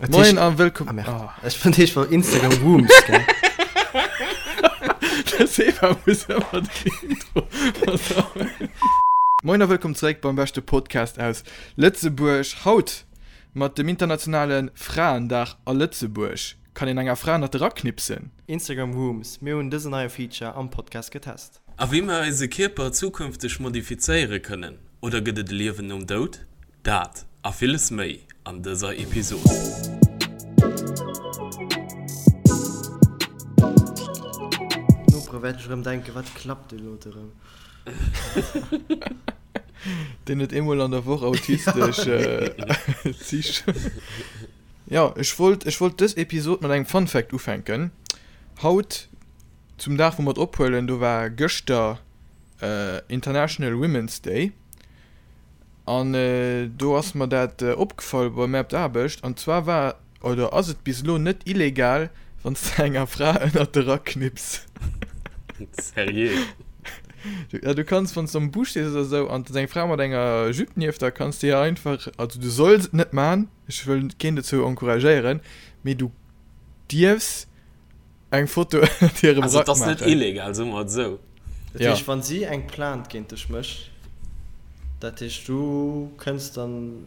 Moien a wëllkomm. Ah, merde. Oh. Ech fand heescht war Instagram Rooms, gell? De Seba muss ëmmer den Intro versauen. Moien a wëllkomm zeréck beim beschte Podcast aus Lëtzebuerg. Haut mat dem internationale Fraendag a Lëtzebuerg. Kann een enger Fra ënnert de Rack knipsen? Instagram Rooms, Mir hunn dësen neie Feature am Podcast getest. A wéi mer eise Kierper zukünfteg modifizéiere kënnen, oder gëtt et e Liewen nom Doud? Dat a villes méi an dëser Episod. D'Nopere wäerten sech erëm denken, Wat klappt dee Lote erëm? Deen huet eemol an der Woch autistesch Zich. Jo, ech wollt, ech wollt dës Episod mat engem Fun Fact ufänken. Haut, zum Dag wou mer et ophuelen, do war gëschter International Women's Day. An do ass mer dat opgefall bei mär op der Aarbecht. An zwar war oder ass et bis elo net illegal, wann s de enger Fra ënnert de Rack knipps. Seriö? Ja, du kanns, wann s de am Bus stees oder sou an et ass eng Fra mat enger Jupe nieft der, kanns de hir einfach, also du solls et net man, ech wëll keen dozou encouragéieren, mee du dierfs Eng Foto ënnert hirem Also Rack et ass net maachen. illegal, soe mer et esou. Dat Ja. heescht, wann si eng Plainte géint dech mécht, dat heescht du kënns dann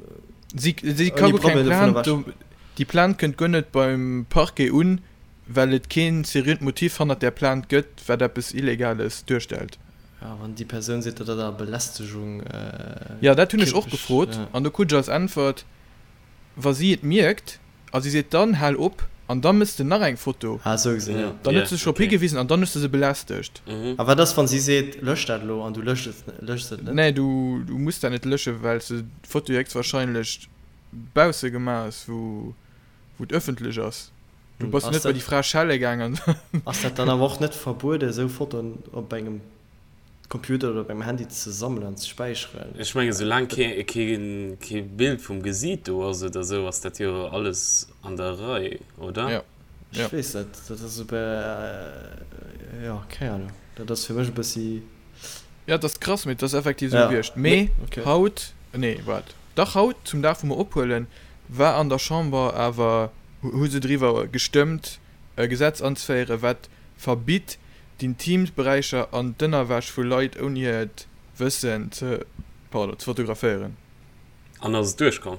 Si, si ka ouni guer keng Problem dovun Plainte, ewech. do, déi Plainte kënnt guer net beim Parquet un, well et keen seriöt Motiv hannert där Plainte gëtt, wat eppes Illegales duerstellt. Ja, wann déi Persoun seet, datt dat awer Belästegung Ja, dat hunn ech och kierperlech, gefrot ja. an do krut ech als Äntwert, Wa si et mierkt a si seet dann hal op an da mëss de nach eng Foto, Ah, esou gesinn, jo. dann huet se sech drop higewisen an dann hues de se belästegt. A wat ass, wann si seet, lösch dat elo an du löscht et, löschs et net? Nee, du muss dat net löschen, well s de d'Foto héchstwahrscheinlech bausse gemaach hues, wou et ëffentlech ass. Du bass jo net bei déi Fra schelle gaangen. Ass dat dann awer och net verbuede, esou Fotoen op engem Computer oder beim Handy ze sammelen an ze späicheren. Ech mengen soulaang kee Bild vum Gesiit do ass oder sou ass dat jo alles an der Rei, oder? Jo. Ech weess net, dat ass e jo keng Ahnung, dat ass fir mech e bëssi. Jo, et ass krass, mee et ass effektiv esou gewiescht. Mee haut, nee waart, dach haut zum Dag wou mer ophuelen, war an der Chamber awer, hu se driwwer gestëmmt e Gesetz anzeféieren, wat verbitt, d'Intimberäicher an d'Ënnerwäsch vu Leit ouni hiert Wëssen ze, pardon, ze fotograféieren. An ass et duerchkomm?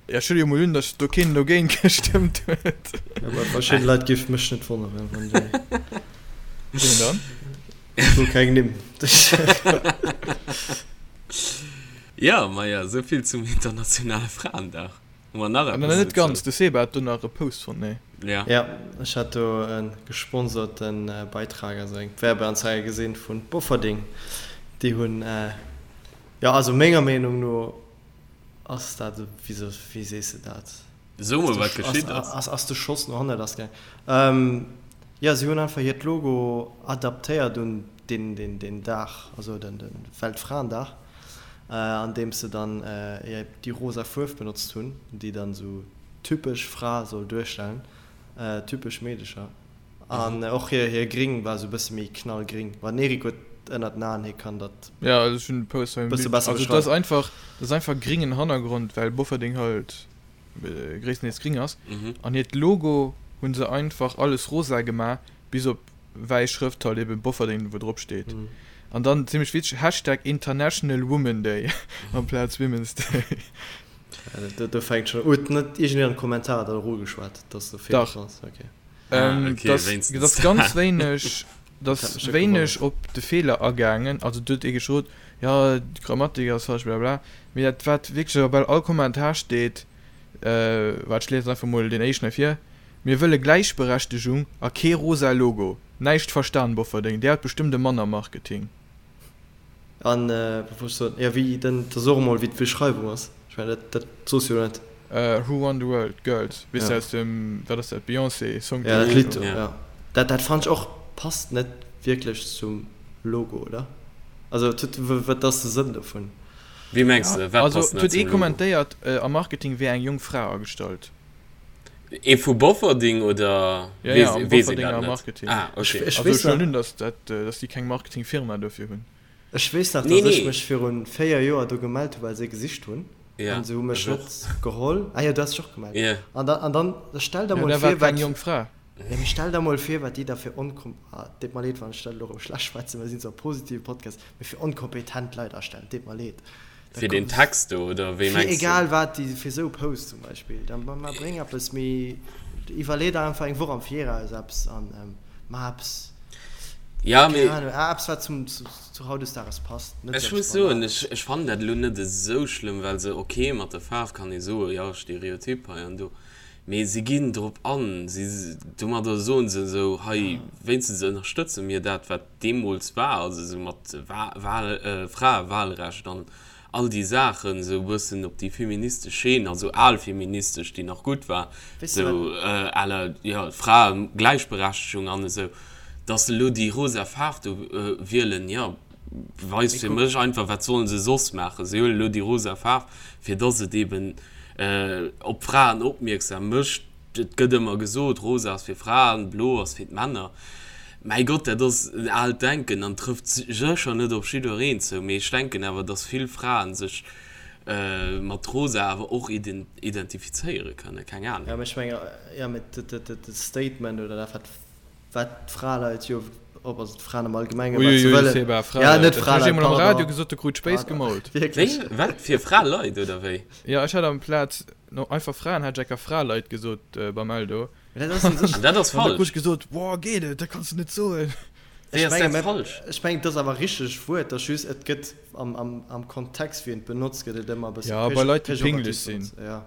Ja, ech huele jo mol un, datt do keen dogéint gestëmmt huet. Ja, bei verschidde Leit géif mech net wonneren, wann déi. Wien dann? Ech wëll keng Nimm. Jo, maja, esou vill zum internationale Fraendag. Hu mer nach Ah, eppes net ganz, dozou? de Seba hat do nach e Post fonnt, nee? Ja. Ja, ech hat do e gesponsorten Beitrag, also eng Werbeanzeige gesinn vun Bofferding. Déi hunn, jo also menger Meenung no ass dat, wéi se, wéi sees de dat? So mol wat geschitt ass. Ass, ass de Schoss no hanne lass gaangen. Jo, si hunn einfach hiert Logo adaptéiert un deen, deen, deen Dag, also den, den Weltfraendag. Andeems se dann déi rosa Fuerf benotzt hunn, déi dann esou typesch Fra soll duerstellen, typesch Meedecher. An och hir Gring war esou e bësse méi knallgring. Mä den Eric huet ënnert den Aen, hie kann dat Ja, also ech hunn de Post hei bësse besser Also et ass beschreiwen. einfach, et ass einfach gringen Hannergrond, well Bofferding halt gréisstendeels gring ass. An hiert Logo hu se einfach alles rosa gemaach, bis op wäiss Schrëft halt eben Bofferding wou drop steet an dann zimmlech witzeg Hashtag International Woman Day amplaz Women's Day. Do, do fänkt schon huet net iergendeen an de Kommentarer dat och ugeschwat dass do Feeler Dach. dran ass? Okay. Ah, okay, Dass wéinstens dass ganz dat. wéineg Dat dass hat mech net wéineg gewonnert. op de Feeler agaangen, also do huet ee geschrot jo d'Grammatik ass falsch blablabla, mee dat wat wierklech a bal all Kommentar steet, waart ech liesen einfach mol deen éischten hei vir, Mir wëlle Gläichberechtegung a kee rosa Logo. Näischt verstan Bofferdeng, där huet bestëmmt e Mann am Marketing. An wat wollt ech soen, jo wéi den, da so emol wéi d'Beschreiwung ass, ech mengen dat dat soos jo net. Who Run the World, Girls, weess de Ja. aus dem, wat ass dat, Beyoncé Song Ja dat Lidd do, Ja. ja. Dat dat fannen ech och passt net wierklech zum Logo, oder? Also et huet, wat ass de Sënn dovun? Wéi mengs de, wat Also passt et net huet ee zum Logo? kommentéiert, am Marketing wier eng jonk Fra agestallt. Ee vu Bofferding oder Ja, ja, am weess een Bofferdinger dat net? Marketing. Ah, okay. Ech Also weess ech huelen nach, un, dass dat, dass déi keng Marketingfirma dofir hunn. ech weess nach, Nee, dass ech nee. mech virun 4 Joer do gemellt hu well se gesicht hunn. Ja, an se hu mech net geholl. Ah jo, du has dech och gemellt. Yeah. An dann, an dann stell der mol vir, wat. Keng jonk Fra. Ja, mee stell der mol vir, wat déi da fir onkom, ah, deet mer leed, wann ech dat elo erëm schlecht schwätzen, well mir sinn zwar e positive Podcast, mee fir onkompetent Leit astellen, deet mer leed. Da Fir den Text do, oder wéi mengs du? Fir egal wat, déi, fir esou Posts zum Beispill. Dann ma, ma bréng eppes méi, iwwerlee der einfach eng Woch am Viraus eppes an ma eppes, Ja, mee. keng Ahnung, eppes wat zum, zu, zu hautdesdaags passt, net Ech muss soen, ech, ech fannen dat elo net esou schlëmm, well se, ok, mat der Faarf kann ee soen, jo, Stereotyp hei an do, mee si ginn drop an, si, domadder soen se esou, hei, wéinstens ënnerstëtze mir dat, wat deemools war, also esou mat Wa, Wahl, Fraewahlrecht an all déi Saachen, esou e bëssen op déi feministesch Scheen, also al feministesch, déi nach gutt war, esou à la, jo, Fraegläichberechtegung an esou. Dass se elo déi rosa Faarf do wielen, jo, weist fir mech einfach, wat sollen se soss maachen? Se huelen elo déi rosa Faarf, fir dass et eben op d'Fraen opmierksam mécht. Et gëtt ëmmer gesot, rosa ass fir Fraen, blo ass fir d'Männer. Mäi Gott, dat ass en aalt Denken an trëfft sécher net op jiddwereen zou. Mee ech denken awer, dass vill Fraen sech mat rosa awer och identifizéiere kënnen. Keng Ahnung. Jo, mee ech mengen, jo, mee de Statement oder dat, wat Wat d'Fraleit jo, op, also d'Fraen am Allgemengen, wat se wëllen. Seba, Fraleit. Ja, net Fraleit, pardon. Am Radio gesot, du krut Spéis gemault. Wierklech? Wéi? Wat? Fir Fraleit, oder wéi? Jo, ech hat amplaz no einfach Fraen hat ech enker Fraleit gesot beim Eldo. Mä dat ass un sech. An dat ass falsch. An da krut ech gesot, Boah, geet et? Dat kanns du net soen. Wéi ass dat falsch? Ech mengen, et ass awer richteg Wuert, et ass just, et gëtt am Kontext, wéi en et benotzt, gëtt et ëmmer e bësse pejorativ benotzt. Ja, bei Leit, déi pinglech sinn. Ja.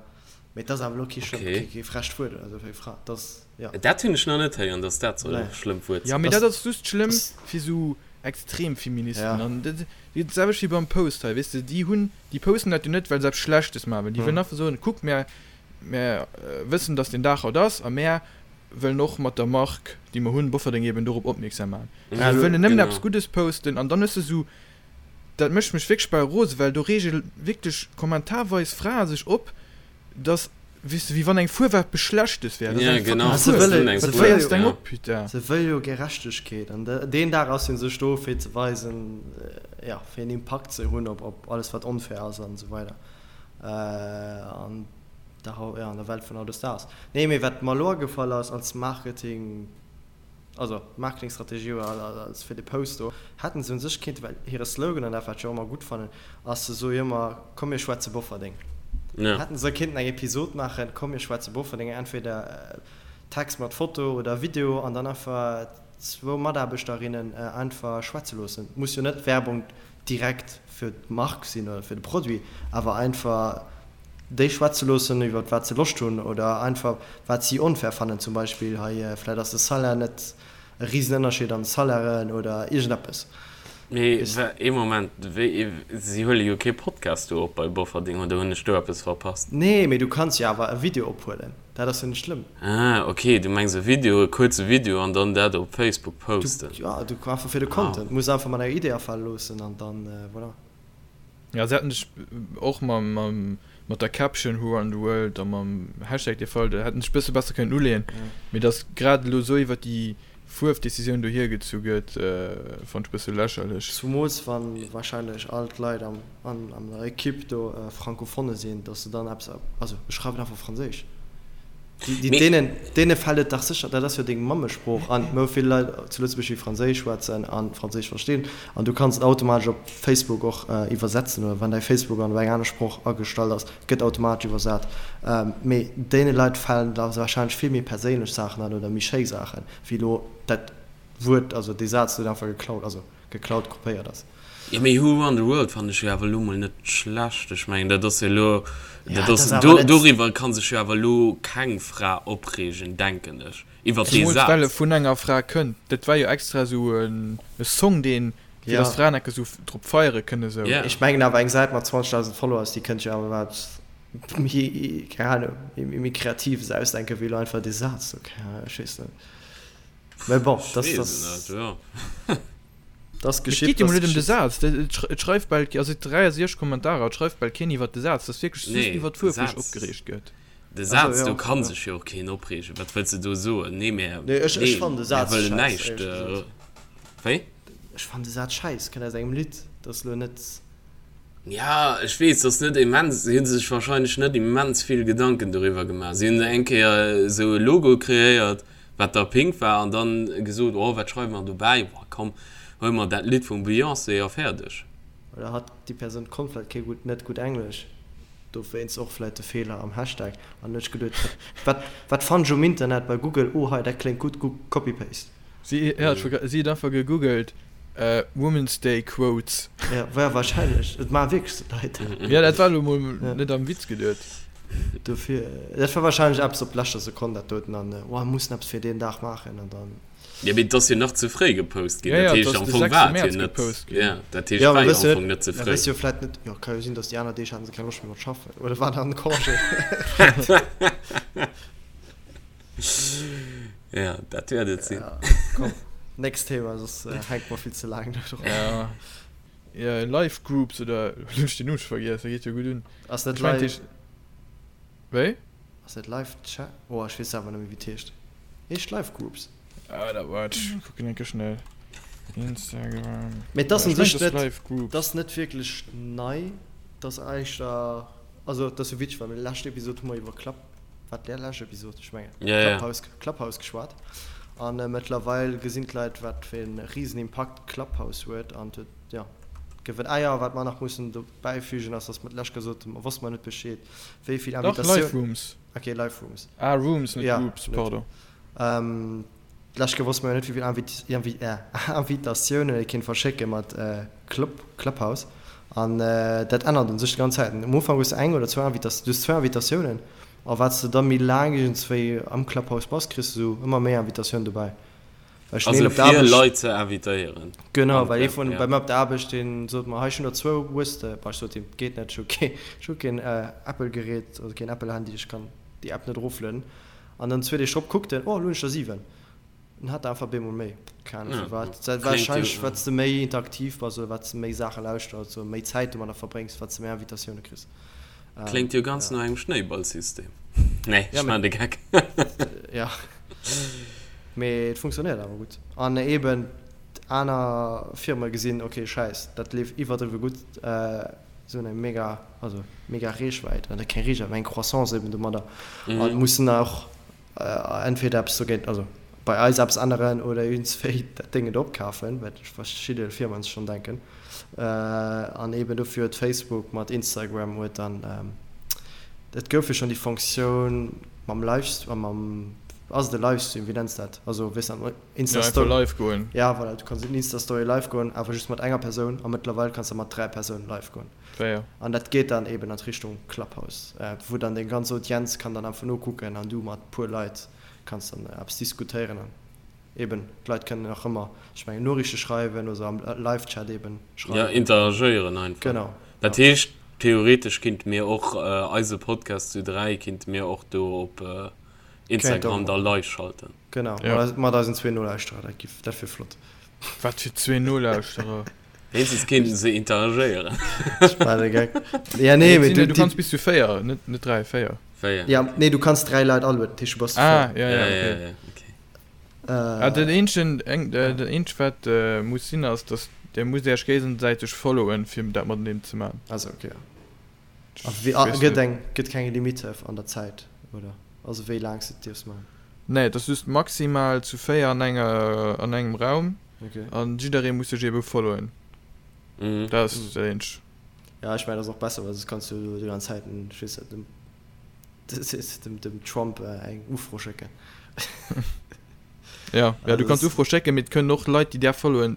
Mee et ass awer elo kee schlëmm, Okay. kee frecht Wuert oder esou fir eng Fra. Et ass, ja. Dat hunn ech nach net héieren, dass dat soll e Nee. schlëmmt Wuert Ja, sinn. mee Das, dat ass just schlëmm das, fir sou Extremfeministen. ja. An dat dat selwecht wéi beim Post hei, weess de, déi hunn, déi posten dat jo net, well se eppes Schlechtes maache wëllen. Déi wëllen Hm. einfach soen, kuck, mär, mär wëssen, dass deen Dag haut ass a mär wëllen och mat der Mark, déi mer hunn, Bofferdeng eben dorop opmierksam maachen. Ja, Se wëllen nëmmen eppes genau. Guddes posten an dann hues de sou, dat mécht mech wierklech bal rosen, well do reege wierklech kommentarweis Frae sech op, dass, weess de, wéi wann eng Fuerf eppes Schlechtes wär. Dat ass Ja, eng fucking genau. Ah, se Fuerf. wëlle, Eng se Wat wëlle féiers jo, deng ja. op, putain? se wëlle jo Gerechtegkeet. An de, deen Dag ass jo u sech do, fir ze weisen, ja, fir en Impakt ze hunn op, op alles, wat onfair ass an esou weider. An der, ja, an der Welt vun hautdesdaags. Nee, mee wat mer elo agefall ass als Marketing, also Marketingstrategie oder als fir de Post do, hätten se un sech kéinten, well hire Slogan, an dat wat ech och ëmmer gutt fannen, ass se soe jo ëmmer, komm mir schwätze Bofferdeng. Ja. Hätten se kéinten eng Episod maachen, komm mir schwätze Bofferdeng, entweder Text mat Foto oder Video an dann einfach zwou Mataarbechterinnen einfach schwätze loossen. Muss jo net Werbung direkt fir d'Mark sinn oder fir de Produit, awer einfach déi schwätze loossen iwwer wat se Loscht hunn oder einfach wat si onfair fannen, zum Beispill hei vläit ass de Salaire net e Risenënnerscheed an de Salairen oder iergendeppes. Mee ee Moment, wéi, si huele jo kee Podcast do op bei Bofferding, oder hunn ech do eppes verpasst? Nee, mee du kanns jo awer e Video ophuelen, dat ass jo net schlëmm. Ah, ok, du mengs e Video, e kuerze Video an dann dat op Facebook posten. Du, ja, du einfach fir de Content, muss einfach mat enger Idee afale loossen an dann voilà. Ja, se hätten sech och mam, mam, mat der Caption Who Run the World a mam Hashtag dee Fall, do hätten sech bësse besser kënnen uleeën. Mee dass grad elo esou iwwer déi Fuerfdecisioun do hiergezu gëtt, fonnt ech bësse lächerlech. Zumools wann wahrscheinlech all d'Leit am, an, an der Equipe do Francophone sinn, dass se dann eppes, also ech schreiwen einfach Franséisch. Déi, Mee. deenen, deene fält et dach sécher, dat ass jo deng Mammesprooch an mir hu vill Leit zu Lëtzebuerg, déi Franséisch schwätzen a Franséisch verstinn an du kanns et automatesch op Facebook och iwwersetzen oder wann däi Facebook an op eng aner Sprooch agestallt ass, gëtt automatesch iwwersat. Mee deene Leit falen da warscheinlech vill méi perséinlech Saachen an oder méi schéi Saachen, wéi elo dat Wuert, also dee Saz, deen einfach geklaut, also geklaut, kopéiert ass. Jo, mee Who Run the World fannen ech jo awer elo mol net schlecht. Ech mengen, dat ass jo elo, Ja, dat dat ass, ass awer do, net. doriwwer ka sech jo awer elo keng Fra opreegen, denken ech, iwwer dee Zemools well e Saz. vun enger Fra kënnt. Dat war jo extra esou e Song, deen, fir Ja. dass Fraen enke sou drop feiere kënne sou. Ja. Ech mengen awer eng Säit mat 20.000 Followers, déi kënnt jo awer wat méi, keng Ahnung, méi Kreatives ausdenken, wéi elo einfach dee Saz do. Keng Ahnung, ech weess net. Mä bon, Ech dat weess ass. et net, jo. Das Et geschitt, geet jo das mol net ëm de geschitt. Saz. Et schreift bal, also et 63 Kommentarer, et schreift bal keen iwwert de Saz. Et ass wierklech just Nee, iwwert de d'Fuerf, wou sech Saz, opgereegt gëtt. de Also Saz, do jo, ka jo. sech jo och keen opreegen. Wat wëlls de do soen? Nee, mär, Nee, ech, ech nee, fannen de mär Saz wëllen schäiss, näischt. éierlech gesot. Wéi? Ech fannen de Saz schäiss, kënnt aus engem Lidd, dat ass elo net. Ja, ech weess, dass net immens, si hu sech wahrscheinlech net immens vill Gedanken doriwwer gemaach. Si hunn eng Kéier esou e Logo kreéiert, wat da pink war, an dann gesot, oh, wat schreiwe mer dobäi, boah, komm, huele mer dat Lidd vum Beyoncé a fäerdeg. Oder hat déi Persoun konnt vläit kee gutt, net gutt Englesch, dowéinst och vläit de Feeler am Hashtag, an huet sech geduet, wat, wat fannen ech um Internet bei Google, oh hei, dat kléngt gutt, copy paste. Si huet einfach gegoogelt Women's Day Quotes. Ja, war wahrscheinlech. Et maache wierklech sou Leit dat. Ja, dat war elo mol net am Witz geduet. Dofir, dat war wahrscheinlech eppes op leschter Sekonn dat doten an oh, mir mussen eppes fir deen Dag maachen an dann. Ja, mee et ass jo nach ze fréi gepost ginn. Dat heescht, am Fong war et jo net. Ja, dat heescht, war jo am Fong net ze fréi. Ja, wëss jo vläit net. Jo, ka jo sinn, datt déi aner Deeg haten se keng Loscht méi mat schaffen oder waren an Congé. Ja, dat wäert et sinn. Ja, komm, nächst Thema, soss äh, hänkt mer vill ze laang do dran. Ja. Ja, Live Groups oder lo hunn ech den Numm scho vergiess, dat geet jo gutt un. Ass net Ech mengt live, heescht wéi? ass net live Chat? Oh, ech weess selwer net méi wéi et heescht. Heescht Live Groups. Ah, dat waart, ech kucken eng Kéier schnell. Instagram. Mee et ass Ja, un ech mengt sech et ass net, Live et Groups. ass net wierklech nei, et ass éischter, also et ass jo witzeg, well lescht Episod hu mer iwwer Club Wat där lescht Episod, ech mengen Ja, ja. Clubhouse, Clubhouse geschwat. An mëttlerweil gesinn d'Leit, wat fir e risen Impakt Clubhouse huet. An et huet, jo, gewënnt. Ah jo, wat mer nach mussen dobäifügen ass, dass mer d'lescht gesot hunn, mer wosste mer net Bescheed, wéi vill Dach, Invitatioun. Live Rooms. Okay, Live Rooms. Ah, Rooms, net Ja, Groups, net. pardon. D'lescht Kéier wosste mer jo net, wéi vill Invitatiounen ee kéint verschécke mat Clubhouse. An dat ännert un sech déi ganz Zäit. Am Ufank hues de eng oder zwou Invitatioun, du hues zwou Invitatiounen. A wat s de da méi laang iergendswéi am Clubhouse bass, kriss de sou ëmmer méi Invitatiounen dobäi. Well ech hunn een Also op der fir Aarbecht. Leit ze invitéieren. Genau, well ee vun bei mir op der Aarbecht, dee sot mer, hei ech hunn der zwou, hues de? Bah, ech sot him, geet net, ech hu kee, ech hu keen Apple-Gerät, also keen Apple-Handy, ech kann déi App net eroflueden. An dann zwee Deeg drop kuckt en, oh, elo hunn ech der 7. En hat der einfach bemol méi. Keng Ahnung firwat. Dat warscheinlech wat s de méi interaktiv bass oder wat s de méi Saache lauschters oder méi Zäit domadder verbréngs, wat s de méi Invitatioune kriss. Kléngt jo ganz no engem Schnéiballsystem. Nee, ech maan de Geck. Jo, mee et funktionéiert awer gutt. An eben aner Firme gesinn, ok, schäiss, dat leeft iwwerdriwwe gutt. Se hunn eng mega, also mega Reechwäit, oder keng Reechwäit, mä eng Croissance eben domadder a mussen och entweder eppes dogéint, also bei eis eppes änneren oder iergendswéi dat Déngen do opkafen, wat verschidde Firmen sech schonn denken. An eben dofir huet Facebook mat Instagram huet dann, et gouf jo schonn déi Fonctioun mam Live, mam, ass et e Livestream, wéi nenns de dat, also weess net, Insta ja, einfach live goen. Ja, voilà, du kanns in Insta-Story live goen, awer just mat enger Persoun a mëttlerweil kanns de mat 3 Persounen live goen. Fair. An dat geet dann eben an d'Richtung Clubhouse, wou dann deng ganz Audienz kann dann einfach nokucken an du mat puer Leit kanns dann eppes diskutéieren an eben d'Leit kënnen nach ëmmer, ech mengen, Noriichte schreiwen oder am Live-Chat eben schreiwen. Ja, interagéieren einfach. Genau. Dat heescht, theoretesch kinnte mir och eise Podcast zu 3 kinnte mir och do op Instagram da live schalten. Genau, ja. mat eisen zwee Nolauschterer, dat giff, dat wier flott. Wat fir zwee Nolauschterer? Wéinstens kéinten se interagéieren. War de Geck. Ja, nee, mee du, du kanns bis zu 4, net, net 3, 4. 4. Ja, nee, du kanns 3 Leit alueden, dat heescht du bass zu 4. Ah, ja, ja, okay. Ja, ja, okay. Äh, ah, den eenzegen, eng, äh, den eenzegen wat äh, muss sinn ass, dass der musst Iech géigesäiteg followen, fir dat mateneen ze man. Also, okay, ja. A wéi, a, gëtt eng, gëtt keng Limite an der Zäit, oder? Also wéi laang s de et dierfs maachen? Nee, et ass just maximal zu 4 an enger, an engem Raum. Okay. An jidderee muss sech ebe followen. Mhm. Dat ass dat eenzegt. Ja, ech mengen, dat ass och besser, well soss kanns du jo déi ganz Zäit, ech weess net, dem, dem, dem Trump eng Ufro schécken. Ja, ja, du Also kanns das, Ufro schécken, mee et kënnen och Leit, déi där followen,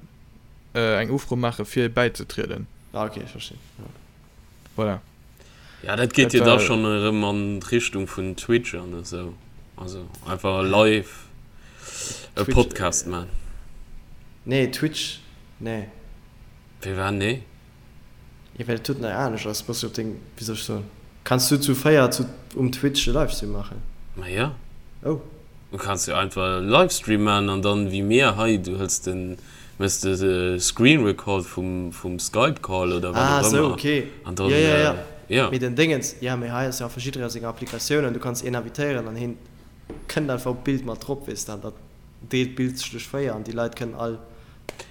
eng Ufro maache fir bäizetrieden. ah, okay, ech verstinn, ja. Voilà. Ja, dat geet Dat jo da war. schonn erëm an d'Richtung vun Twitch an esou. Also einfach live e Twitch, Podcast man. nee, Twitch, nee. Wéi war nee? Jo, well et tut nei anescht ass, bass du op deng, wéi soll ech soen, kanns du zu 4 zu um Twitch e Livestream maachen? Ma jo. Oh. Du kanns jo einfach e Livestream man an dann wéi mir hei, du hëls den, méchs de Screen Record vum vum Skype Call oder wat Ah, och sou, ëmmer okay. an Jo, dann jo, jo. jo. Mee den Déngens, jo, mee hei ass jo einfach jidderee seng Applikatioun an du kanns een invitéieren an heen kënnt einfach op d'Bild mat drop, weess de, an dat deelt d'Bild sech duerch 4 an déi Leit kënnen all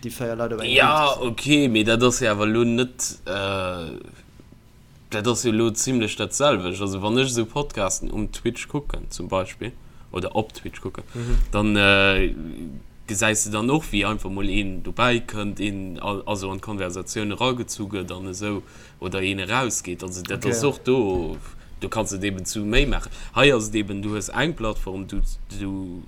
déi 4 Leit op engem Ja, Bild gesinn. okay, mee dat ass jo awer elo net. Dat ass jo elo zimlech dat selwecht. Also wann ech esou Podcasten um Twitch kucken zum Beispill oder op Twitch kucken, dann gesäis de dann och wéi einfach mol een dobäi kënnt, een also an d'Konversatioun eragezu gëtt an esou oder een erausgeet. Also dat ass och do, do kanns de et eben zu méi maachen. Hei ass et eben, du hues eng Plattform, du du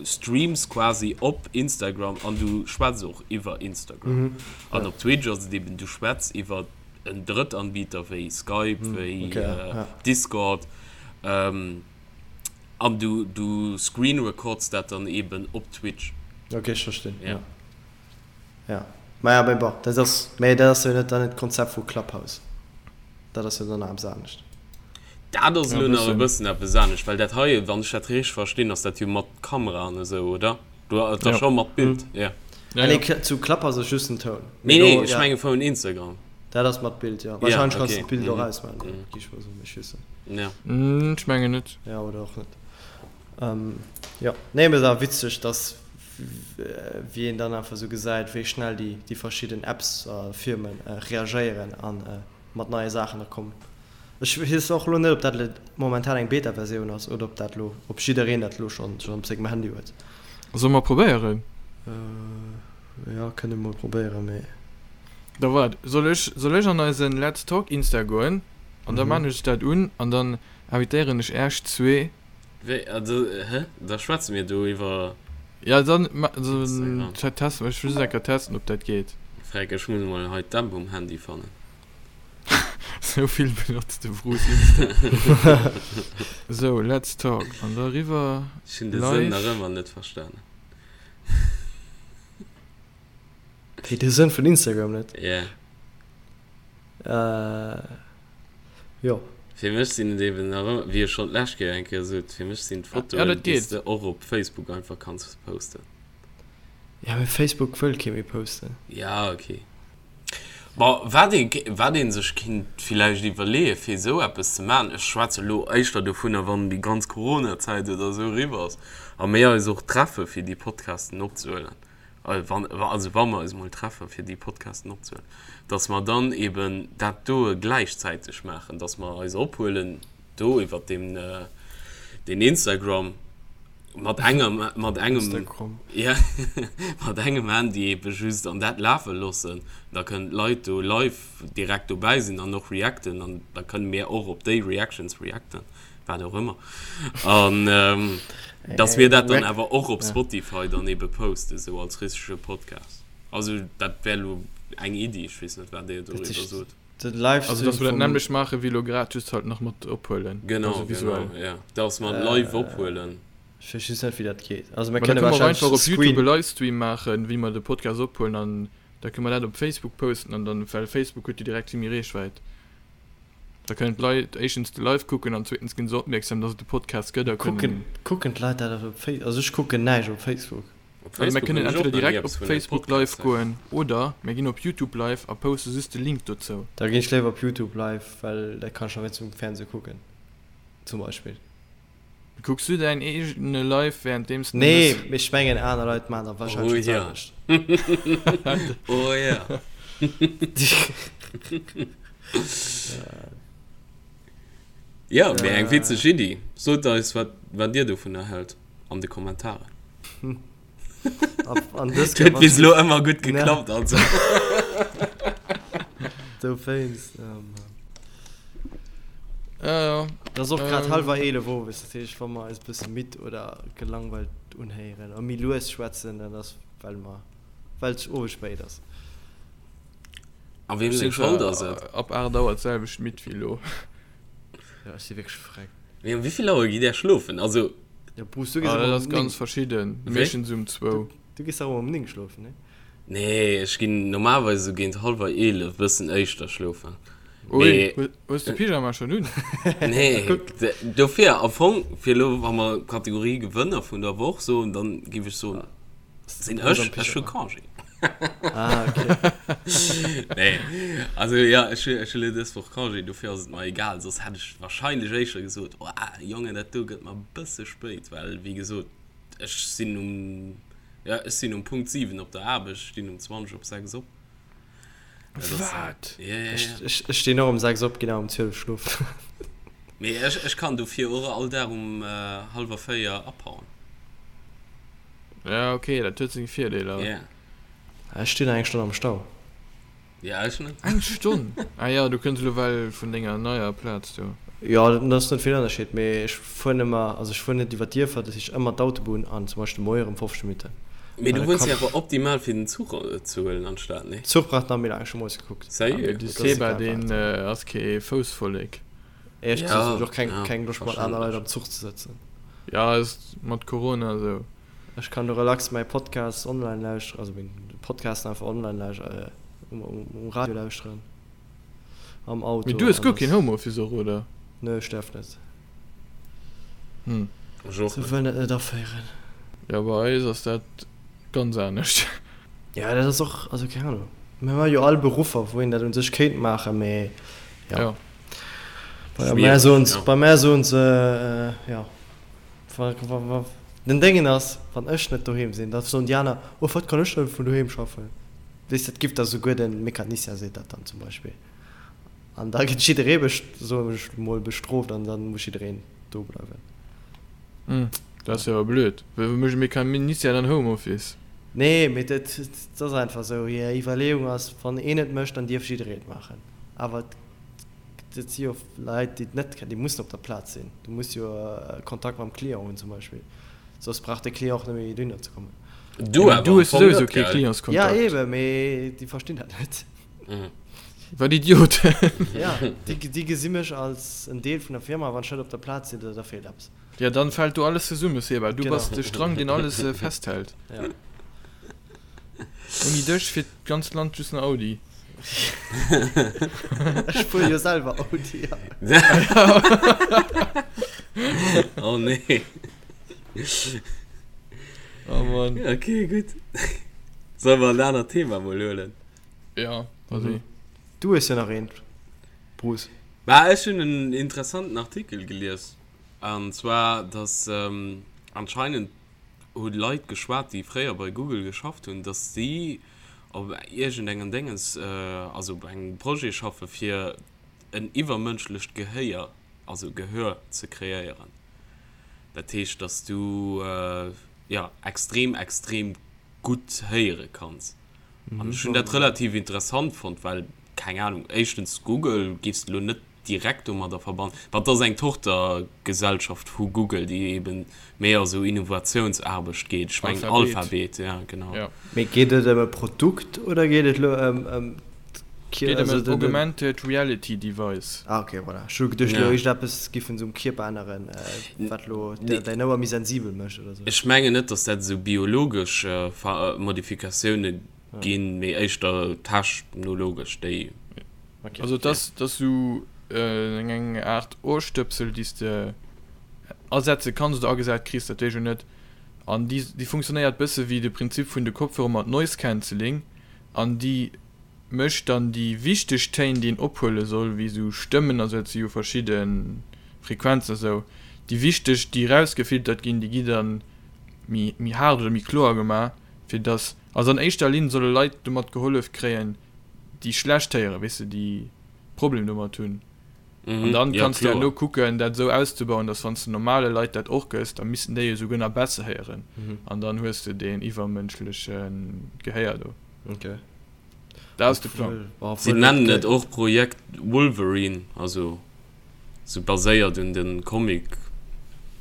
streams quasi op Instagram an du schwätz och iwwer Instagram. An op Twitch ass et eben, du schwätz iwwer en Drëttanbieter wéi Skype, wéi Discord an du du screen records dat dann eben op Twitch. Ok, ech verstinn, jo. Ja, maja, mee bon, dat ass, mee dat ass jo net dann d'Konzept vu Clubhouse. Dat ass jo dann nach eppes anescht. Dat ass elo nach e bëssen eppes anescht, well dat hei, wann ech dat richteg verstinn, ass dat jo mat Kamera an esou, oder? Du et ass scho mat Bild, jo. Ah nee, zu Clubhouse ass just den Toun. Nee, nee, ech menge vun Instagram. Dat ass mat Bild, jo. Wahrscheinlech kanns du d'Bild och ausmaachen, gi ech mol soen, ech weess net. Jo. Ech mengen net. Jo, oder och net. Jo, nee, mee et ass witzeg, dass wéi een dann einfach esou gesäit, wéi schnell déi déi verschidden Apps a Firme reagéieren a mat neie Saachen da kommen. Ech weess och elo net, ob dat elo momentan eng Beta-Versioun ass oder ob dat elo, ob jiddereen dat elo schonn schonn op sengem Handy huet. Solle mer probéieren? Jo, kënne mol probéieren, mee. Da waart, soll ech, soll ech an eisen Let's Talk Insta goen an da maan ech dat un an dann invitéieren ech äerch zwee. Wéi, also, hä? Da schwätze mir do iwwer. Ja, dann Instagram. Testen, ech wëll just eng Kéier testen, ob dat geet. Freck, ech muss mol hei d'App um Handy fannen. Sou vill benotzt de Bruce Insta. Sou, let's talk. An da riwwer Ech hunn de Sënn nach ëmmer net verstanen. Wéi, de Sënn vun Instagram net? Yeah. Jo. Fir mech sinn et eben nach ëmmer, wéi ech schonn d'lescht Kéier eng Kéier sot, fir mech sinn d'Fotoen, déi s de och op Facebook einfach kanns posten. Ja, mee Facebook wëll kee méi posten. Ja, okay. Bon, wat ee, wat ee sech kinnt villäicht iwwerleeë fir esou eppes ze maachen, ech schwätze elo éischter dovunner, wann déi ganz Coronazäit oder esou eriwwer ass a mir eis och treffe fir déi Podcasten opzehuelen, wann, also wa mer eis emol treffe fir déi Podcasten opzehuelen, datt mer dann eben dat doe gläichzäiteg maachen, datt mer eis ophuelen do iwwert deen, deen Instagram. Mat engem, mat engem, Instagram. Ja, mat engem Handy ebe just an dat lafe loossen. Da kënnen d'Leit do live direkt dobäi sinn an och reacten an da kënne mir och op déi Reactions reacten, wat och ëmmer. An dass mir dat dann awer och op Spotify dann ebe posten, sou als richtege Podcast. Also dat wär elo eng Iddi, ech weess net, wat Dir doriwwer sot. Den Livestream Also dass mer dat nämmlecht maache wéi elo grad, just halt nach mat ophuelen. Genau, also visuell. Genau, ja. Dass mer live ophuelen. Ech weess just net wéi dat geet. Also mir kënne wahrscheinlech einfach op YouTube e Livestream maachen, wéi mer de Podcast ophuelen an da kënne mer dat op Facebook posten an dann, well Facebook huet jo direkt vill méi Reechwäit. Da kënnen d'Leit éischtens de Live kucken an zweetens ginn se opmierksam, dass et de Podcast gëtt a kënnen. Kucken d'Leit dat op Facebook? Also ech kucken näischt op Facebook. Op Also mir Facebook kënnen hunn ech och entweder nach ni direkt op eppes vun engem Facebook live Podcast héieren. goen oder mir ginn op YouTube live a poste just de Link dozou. Da ginn ech léiwer op YouTube live, well dat kann ech nach wéinst um Fernseh kucken zum Beispill. Kucks du däin eegene Live währenddeems de Nee, mëss? mee ech mengen aner Leit maachen da wahrscheinlech Oh dat ja. selwecht. Oh ja. Ja, mee eng witzeg Iddi. Sot eis wat wat dir dovunner hält an de Kommentaren. An dës Huet bis elo ëmmer gutt geklappt, also. Dowéinst, oh Mann. Ja, ja. Et ass och grad hallwer 11 owes, dat heescht, wa mer eis e bësse midd oder gelangweilt unhéieren a méi lues schwätzen, dann ass well mer, well et owes spéit ass. A weem seng Schold ass et? Ab 8 Auer d'selwecht midd wéi elo. Jo, ech si wierklech freck. Mee um wéivill Auer gitt Där schlofen? Also. Ja, Bruce, du gees Ah, ëmmer dat um ass 9. ganz verschidden. Wéi? Meeschtens um zwou. Du gees dach ëmmer um 9 schlofen, nee? Nee, ech ginn normalerweis esou géint hallwer 11, bëssen éischter schlofen. Ui, Mee. hu- hues de Pyjama schonn un? Nee, d- dofir am Fong, fir elo, wa mer Kategorie Gewënner vun der Woch soen, dann géif ech soen, sinn ech, ech hu Congé. Ah, okay. Nee, also ja, ech hu ech hu elo dës Woch Congé, dofir ass et mer egal. Soss hätt ech wahrscheinlech éischter gesot, oh Jongen, dat do gëtt mer e bësse spéit, well wéi gesot, ech sinn um, ja, ech sinn um Punkt 7 op der Aarbecht, ech stinn um 20 op 6 op. Wat? Ja, ja, ja. Ech stinn och um 6 op, ginn awer um 12 schlofen. Mee ech, ech kann dofir och all Dag um hallwer 4 abhauen. Ja, okay, dat huet seng Virdeeler. Ja. Ech stinn eng Stonn am Stau. Ja, ech net. Eng Stonn? Ah ja, du kënns elo well vun denger neier Plaz do. Jo, dat ass net vill Ënnerscheed, mee ech fueren ëmmer, also ech fueren net iwwer d'Dierfer, dat heescht ëmmer d'Autobunn an zum Beispill de Moie erëm 15 Minutten. Mee du wunns jo awer optimal fir den Zuch ze huelen anstatt, nee? Zuch brauch nach méi laang, ech hu moies gekuckt. Ah, mee de Seba, deen ass kee Foussvollek. Éierlech gesot hunn ech och keng, keng Loscht mat aner Leit am Zuch ze sëtzen. Ja, ass mat Corona esou. Ech kann do relax mäi Podcast online lauschteren, also meng Podcasten einfach online lauschteren, um Radio lauschteren, am Auto. Mee du hues guer keen Homeoffice och, oder? Nö, ech däerf net. Hm. Ech och Se net. wëllen et net aféieren. Jo, bei eis ass dat ganz anescht. Jo, dat ass och, also keng Ahnung. Mir hu jo all Beruffer, wou een dat un sech kéint maachen, mee jo. Jo. Bei mär soen se, bei mär soen se, jo. Den Déngen ass, wann ech net doheem sinn, da soen déi aner, oh wat kann ech dann vun doheem schaffen? Weess, dat giff da souguer de Mecanicien seet dat dann zum Beispill. An da gëtt jidderee, soen ech mol, bestrooft an da muss jiddereen do bleiwen. Hm, dat ass jo awer blöd. Wéi mécht e Mecanicien dann Homeoffice? Nee, mee dat ass einfach esou. Hir Iwwerleeung ass, wann een et mécht, dann dierf jidderee et maachen. Awer et Et si jo Leit, déi et net kennen, déi mussen op der Plaz sinn. Du muss jo Kontakt mam Client hunn zum Beispill, soss brauch de Client och net méi dohinner ze kommen. Du awer Du am hues Fong souwisou net, kee gell? Ja, Clientskontakt. eebe, mee déi verstinn dat net. Wat Idioten! Ja, déi, déi gesi mech als en Deel vun der Firma, wann ech net op der Plaz sinn, da, da feelt eppes. Ja, dann fält do alles zesumme, Seba. Du Genau. bass de Strang, deen alles festhält. Ja. Ouni dech fiert d'ganzt Land just nach Audi. Ech fuere jo selwer Audi. Oh nee. Oh Mann. Okay, gutt. Solle mer en anert Thema mol huelen? Ja, vas-y. Du hues jo nach eent, Bruce. Bah, ech hunn en interessanten Artikel gelies. An zwar, dass anscheinend hu Leit geschwat, déi fréier bei Google geschafft hunn, dass si op iergendengem Déngens, also op engem Projet schaffe fir en iwwermënschlecht Gehéier, also Gehör ze kreéieren. Dat heescht, dass du, jo, extrem, extrem gutt héiere kanns. An ech hunn dat relativ interessant fonnt, well, keng Ahnung, éischtens Google géifs de elo net direkt domadder verbannen. Wat ass eng Tochtergesellschaft vu Google, déi eben méi a sou Innovatiounsaarbecht geet. Ech mengen Alphabet. Alphabet, ja genau. Ja. Mee geet et ëm e Produkt oder geet et elo ëm ëm d'Kier, Geet ëm also en den, den. Augmented Reality Device. Ah ok, voilà. Ech hu geduecht elo Ja. iergendeppes giffen se um Kierper änneren, wat elo Nee. däin Ouer méi sensibel mécht oder sou. Ech mengen net, datt dat esou biologesch Modifikatioune ginn, mee éischter technologesch, déi. Okay. Also et ass, et ass sou eng Aart Ohrstëpsel, déi s de asetze kanns oder agesat kriss, dat weess ech elo net. An déi, déi funktionéiert bësse wéi de Prinzip vun de Kopfhörer mat Noise Cancelling an déi mécht dann déi wichteg Téin, déi een ophuele soll, wéi sou Stëmmen a sou, dat si jo verschidde Frequenzen a sou, déi wichteg, déi erausgefiltert ginn, déi gi dann méi, méi haart oder méi kloer gemaach, fir dass, also an éischter Linn solle Leit domat gehollef kréien, déi schlecht héieren, weess de, déi Problem domat hunn. An dann Ja, kanns de herno kloer. kucken, dat esou auszebauen, dass wann s de normale Leit dat och gëss, da missten déi jo souguer nach besser héieren. An dann hues de deen iwwermënschleche Gehéier do. Okay. Dat ass de Plang. Obwuel, Si obwuel nennen et et och Projekt Wolverine, also sou baséiert un dem Comic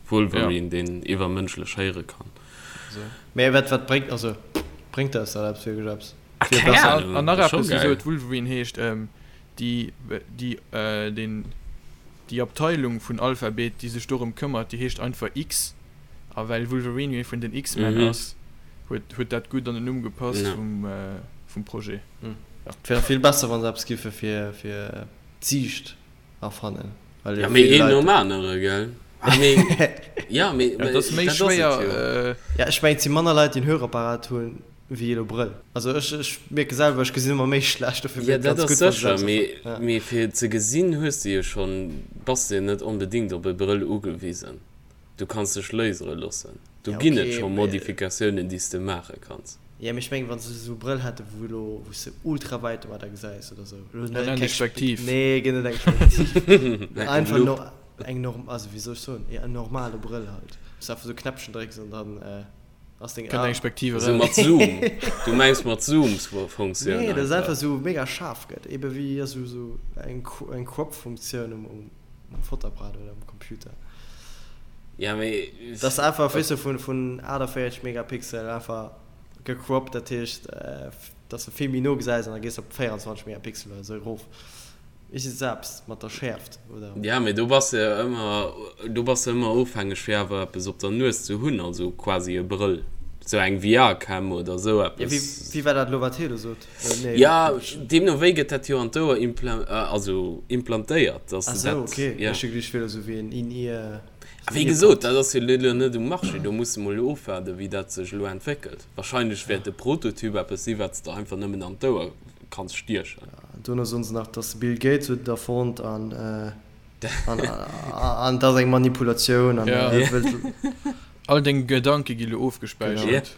Wolverine, deen iwwermënschlech héiere kann. Mee wat, wat bréngt, also bréngt eis dat eppes, wierklech eppes? Ah, Fir keng besser. Ahnung, An nach ass scho eppes, wisou geil. et Wolverine heescht, déi, déi, deen, déi Abteilung vun Alphabet, déi sech dorëm këmmert, déi heescht einfach X. A well Wolverine jo ee vun den X-Men Mhm. ass, huet, huet dat gutt an den Numm gepasst Ja. vum, vum Projet. Et wär vill besser, wa se eppes giffe fir, fir d'Siicht erfannen. Well Ja, jo mee vill een Leit. nom anere, gell? Ah, mee, ja, mee, Ja, et ass méi dat ass et schwéier, jo. Ja, ech mengen, et si manner Leit, déi en Hörapparat hunn, wéi elo Brëll. Also ech, ech mierke selwer, ech gesinn ëmmer méi schlecht, dofir Ja, wier et dat ganz ass gutt, wa se sécher, eppes mee, erfannen. Ja. mee fir ze gesinn hues de jo schonn, bass de net onbedéngt op e Brëll ugewisen. Du kanns dech lasere loossen. Do Ja, ginn et okay, scho mee Modifikatiounen, déi s de maache kanns. Jo, mee ech mengen, wann se esou Brëll hätten, wou elo, wou s de ultra wäit domadder gesäis oder esou. Elo net Eng keng Spektiv. Nee, ginn net eng Spektiv. Eng Einfach Lupp. no, eng norm, also wéi soll ech soen, jo, en normale Brëll halt. Wou s de einfach esou Knäppchen drécks an dann ass deng Kënnt A. eng Spektiv Esou eraus. mat Zoom. Du mengs mat Zoom-Funktioun Nee, dass et einfach. einfach esou mega schaarf gëtt, ebe wéi esou, esou eng, eng Crop-Funktioun um, um Fotoapparat oder um Computer. Ja, mee. Dass einfach, weess du, vun, vun 48 Megapixel einfach gecroppt, dat heescht, dass de vill méi no gesäis an da gees de op 24 Megapixel oder esou erof. Ech si selbst mat der Schäerft, oder? Ja, mee do bass de jo ëmmer, do bass de ëmmer ofhängeg fir awer eppes op der Nues ze hunn, also quasi e Brëll, sou eng VR-Cam oder esou Ja, wéi, eppes. wéi war dat elo, wat hie do sot? Nee, Ja, deemno wéi gëtt dat jo an d'Ouer impla, also implantéiert, dass Ach de sou, dat, okay. ja. Ech hu geduecht, et wier elo sou wéi en In-Ear, A sou wéi gesot, Earpod. dat ass jo elo net um Marché, do muss de mol ofwaarden, wéi dat sech elo entwéckelt. Wahrscheinlech wäert de Prototyp eppes si wat s de einfach nëmmen an d'Ouer kanns stiechen. Dono soen se nach, dass de Bill Gates huet et erfonnt an an et ass eng Manipulatioun an Ja. e wëllt. All deng Gedanke gi lo ofgespäichert.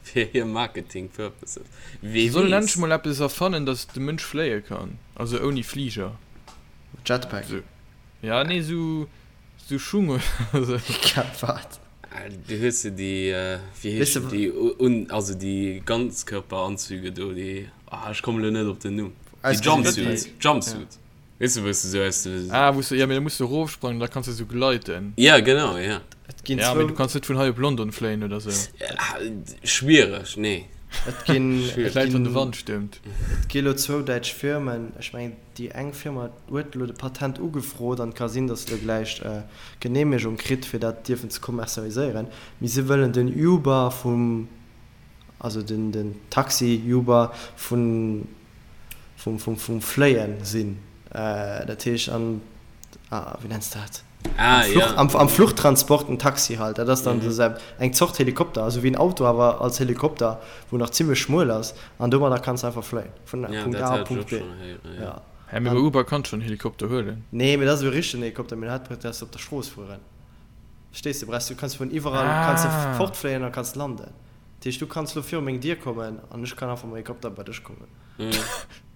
Fir hir Marketing Purposes. Wee Se sollen weess. endlech mol eppes erfannen, dass de Mënsch fléie kann, also ouni Fliger. Jetpack. Sou, ja nee, sou, sou Schung oder sou. Wat? Du hues jo déi, wéi Weess de heeschen déi, un, also déi Ganzkörperanzüge do, déi, ah ech kommen elo net op den Numm, déi Ausgesinn Jumpsuits, wéi. Jumpsuit, weess de wou s de sou aus de. Ah, wou s de, ja mee da muss de erofsprangen, da kanns de sou gleiten. Ja genau, ja. Et ginn Ja, mee zwou. du kanns net vun hei op London fléien oder sou. Schwiereg, nee. Et ginn, Schwiereg. et Vläit wann de ginn, Wand stëmmt. et gi lo zwou däitsch Firmen, ech mengen déi eng Firma huet elo de Patent ugefrot an et ka sinn, datt se elo gläich d'Geneemegung kritt fir dat dierfen ze kommerzialiséieren, mee se wëllen den Uber vum, also den den Taxi Uber vun vum vum vum Fléien sinn. Dat heescht an, ah wéi nenns de dat? Ah, Am Fluch, ja. am, am Fluchtransport en Taxi halt, dat ass dann Mhm. sou eng Zort Helikopter, also wéi en Auto, awer als Helikopter, wou nach zimmlech schmuel ass, an domadder kanns de einfach fléien, vun Ja, Punkt dat A op hat ech Punkt och B. schonn héieren, ja. Ja. Hä, mee bei An, Uber kanns schonn Helikopter huelen. nee, mee dat ass e richtegen Helikopter, mee dat brauchs de op der Strooss fueren. Verstees de? Brauchs du, kanns vun iwwerall kanns de Ah. fortfléien a kanns landen. Dat heescht, du kanns lo viru meng Dier kommen an ech kann einfach mam Helikopter bei dech kommen. Mhm.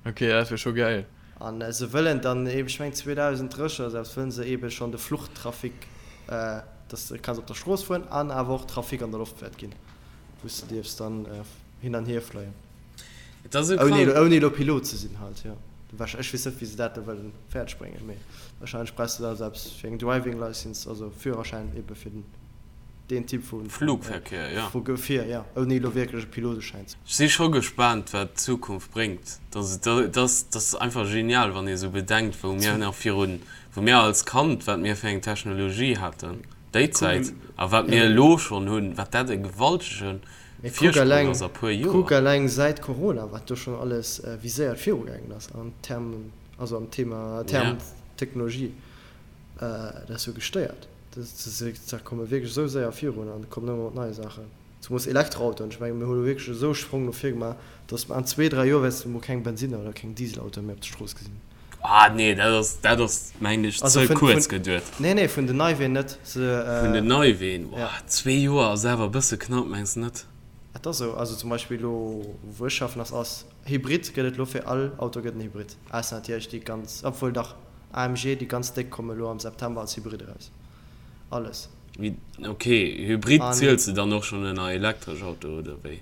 Okay, dat wier scho gäil. An se wëllen dann eeben, ech mengen 2030 oder esou, wëllen se eebe schonn de Fluchtrafic, dass de kanns op der Strooss fueren an awer och Trafic an der Loft wäert ginn, wou s de dierfs dann hin an hier fléien. Et ass esou Ouni krank. ouni elo Pilot ze sinn halt, jo. Ech weess net, wéi se dat elo wëllen fäerdeg bréngen, mee warscheinlech brauchs de da esou eppes fir eng Driving Licence, also Führerschäin eebe fir den. Deen Typ vu Flugverkehr, ja. vu Gefier, ja, ouni elo wierklech e Piloteschäin ze. Ech si scho gespaant wat d'Zukunft bréngt. Dat ass einfach genial wann ee sou bedenkt wou mir nach virun, wou mir als Kand, wat mir fir eng Technologie haten déi Zäit a wat mir elo schonn hunn, wat dat e gewaltege Virsprong ass a puer Joer. Kuck eleng säit Corona wat do schonn alles, wéi séier et virugaangen ass an Termen, also am Thema, Term Technologie. Dat ass jo gestéiert. Da komme wierklech esou séier virun an kommen ëmmer mat neie Saachen. Zemoos Elektroautoen. Ech menge mir hu lo wierklech esou e Sprong no vir gemaach, datt an zwee, dräi Joer wäerts de mol keng Bensinner oder keng Dieselautoe méi op der Strooss gesinn. Ah nee, dat ass, dat ass mengen ech Also ze vun, kuerz vun, geduet. nee, nee, vun den Neiween net. Se, Vun den Neiween, ja. boah, zwee Joer ass awer e bësse knapp, mengs de net? Et ass esou. Also zum Beispill elo wou ech schaffen ass, ass Hybrid gëtt et elo fir all Auto gëtt en Hybrid. Ausser natierlech déi ganz, obwuel dach. AMG, déi ganz déck komme lo am September als Hybrid eraus. Alles. Ok, Hybrid An ziels de dann och schonn ënner elektresch Auto oder wéi?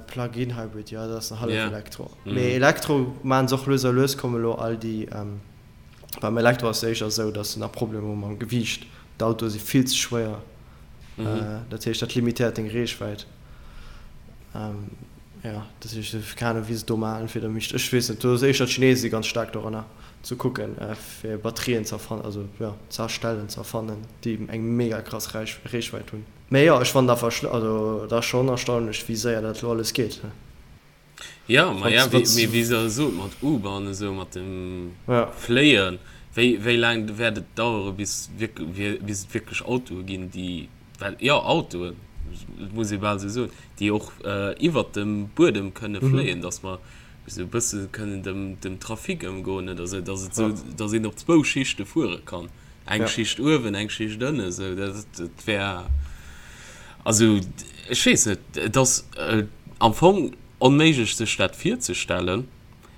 Plug-in Hybrid, jo, dat ass en hallef Ja. Elektro. Mee Elektro maachen se och lues a lues, komme lo all déi. Beim Elektro ass et éischter esou, datt se nach Problemer hu mam Gewiicht. D'Autoe si vill ze schwéier. Dat heescht, dat limitéiert deng Reechwäit. Jo, dat heescht, keng Ahnung, wéi se et do maachen, fir der mécht. Ech weess net, do ass éischter d'Chinese si ganz staark doranner, ze kucken, fir Batterien ze erfannen, also jo, ze erstellen, ze erfannen, déi eng mega krass Reechwäit hunn. Mee jo, ech fannen einfach, also et ass schonn erstaunlech, wéi séier dat elo alles geet. Jo, ma ja, mee wéi se sot, mat Uber an esou, mat dem Fléien, wéi, wéi laang wäert et dauere bis wierk, bis et wierklech Autoe ginn, déi, well jo, Autoen, et muss ee bal esou soen, déi och iwwert dem Buedem kënne fléien, datt mer esou e bësse kënnen dem, dem Trafic ëmgoen oder esou, datt et esou, datt een op zwou Schichte fuere kann, eng Schicht uewen, eng Schicht ënnen, esou, dat, dat wär, also ech weess net, et ass. am Fong onméiglech sech dat virzestellen,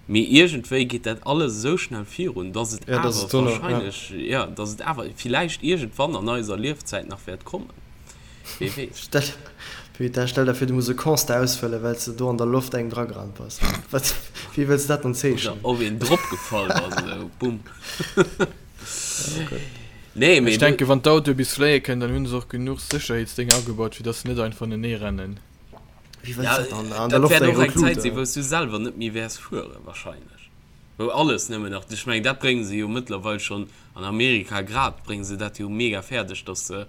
mee iergendwéi geet dat alles esou schnell virun, dass et Ja, dass awer et dono, ja. wahrscheinlech, ja, dass et awer villäicht iergendwann an eiser Liefzäit nach wäert kommen. Wee weess. Stell, putain, stell der vir, du muss e Constat ausfëllen, well s de do an der Loft engem dragerannt bass. Wat, wéi wëlls de dat dann Oder zeechnen? op een dropgefall bass, esou, bumm. Oh Gott. Nee, mee Ech do. denken, wann d'Autoe bis fléie kënnen, dann hu se och genuch Sécherheetsdénger agebaut, fir dass se net einfach anenee rennen. Wéi wëlls Ja, dat dann an der dat Loft wäert eng och rout eng Lut, Zäit sinn, oder? wou s du selwer net méi wäers fueren, wahrscheinlech. Wou alles nëmmen nach, ech mengen, dat brénge se jo mëttlerweil schonn an Amerika grad, brénge se dat jo mega fäerdeg, dass de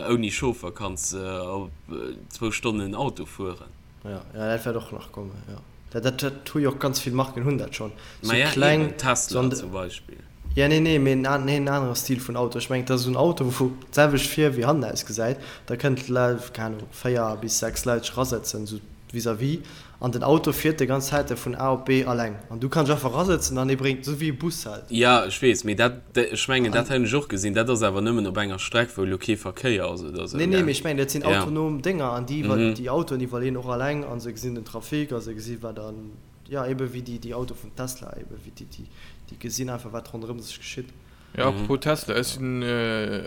ouni Chauffer kanns op zwou Stonnen Auto fueren. Ja, ja, dat wäert och nach kommen, jo. Dat, dat, dat hu jo och ganz vill Marken hunn dat schonn. Ma Sou ja, kleng, eben, sou Tesla an de, zum Beispill. ja, nee, nee, mee en an, nee, en anere Stil vun Auto. Ech mengen, dat ass esou en Auto, wou d'selwecht vir wéi hannen ausgesäit. Da kënnen d'Leit, keng Ahnung, 4 bis 6 Leit sech erasetzen, sou vis-à-vis. An den Auto fiert déi ganz Zäit vun A op B alleng. An du kanns einfach erasëtzen an dee bréngt, esou wéi e Bus halt. Ja, ech weess, mee dat, ech mengen, dat An, hunn ech och gesinn. Dat ass awer nëmmen op enger Streck, wou elo kee Verkéier ass oder esou, nee, nee, gell? mee ech mengen, dat sinn Ja. autonom Dénger an déi iwwer, Mhm. déi Autoen iwwerleeën och alleng a se gesinn den Trafic a se gesi wat an, ja, ebe wéi déi, déi Autoe vun Tesla, ebe wéi déi, déi, déi gesinn einfach, wat ronderëm sech geschitt. Ja, apropos Tesla, ech sinn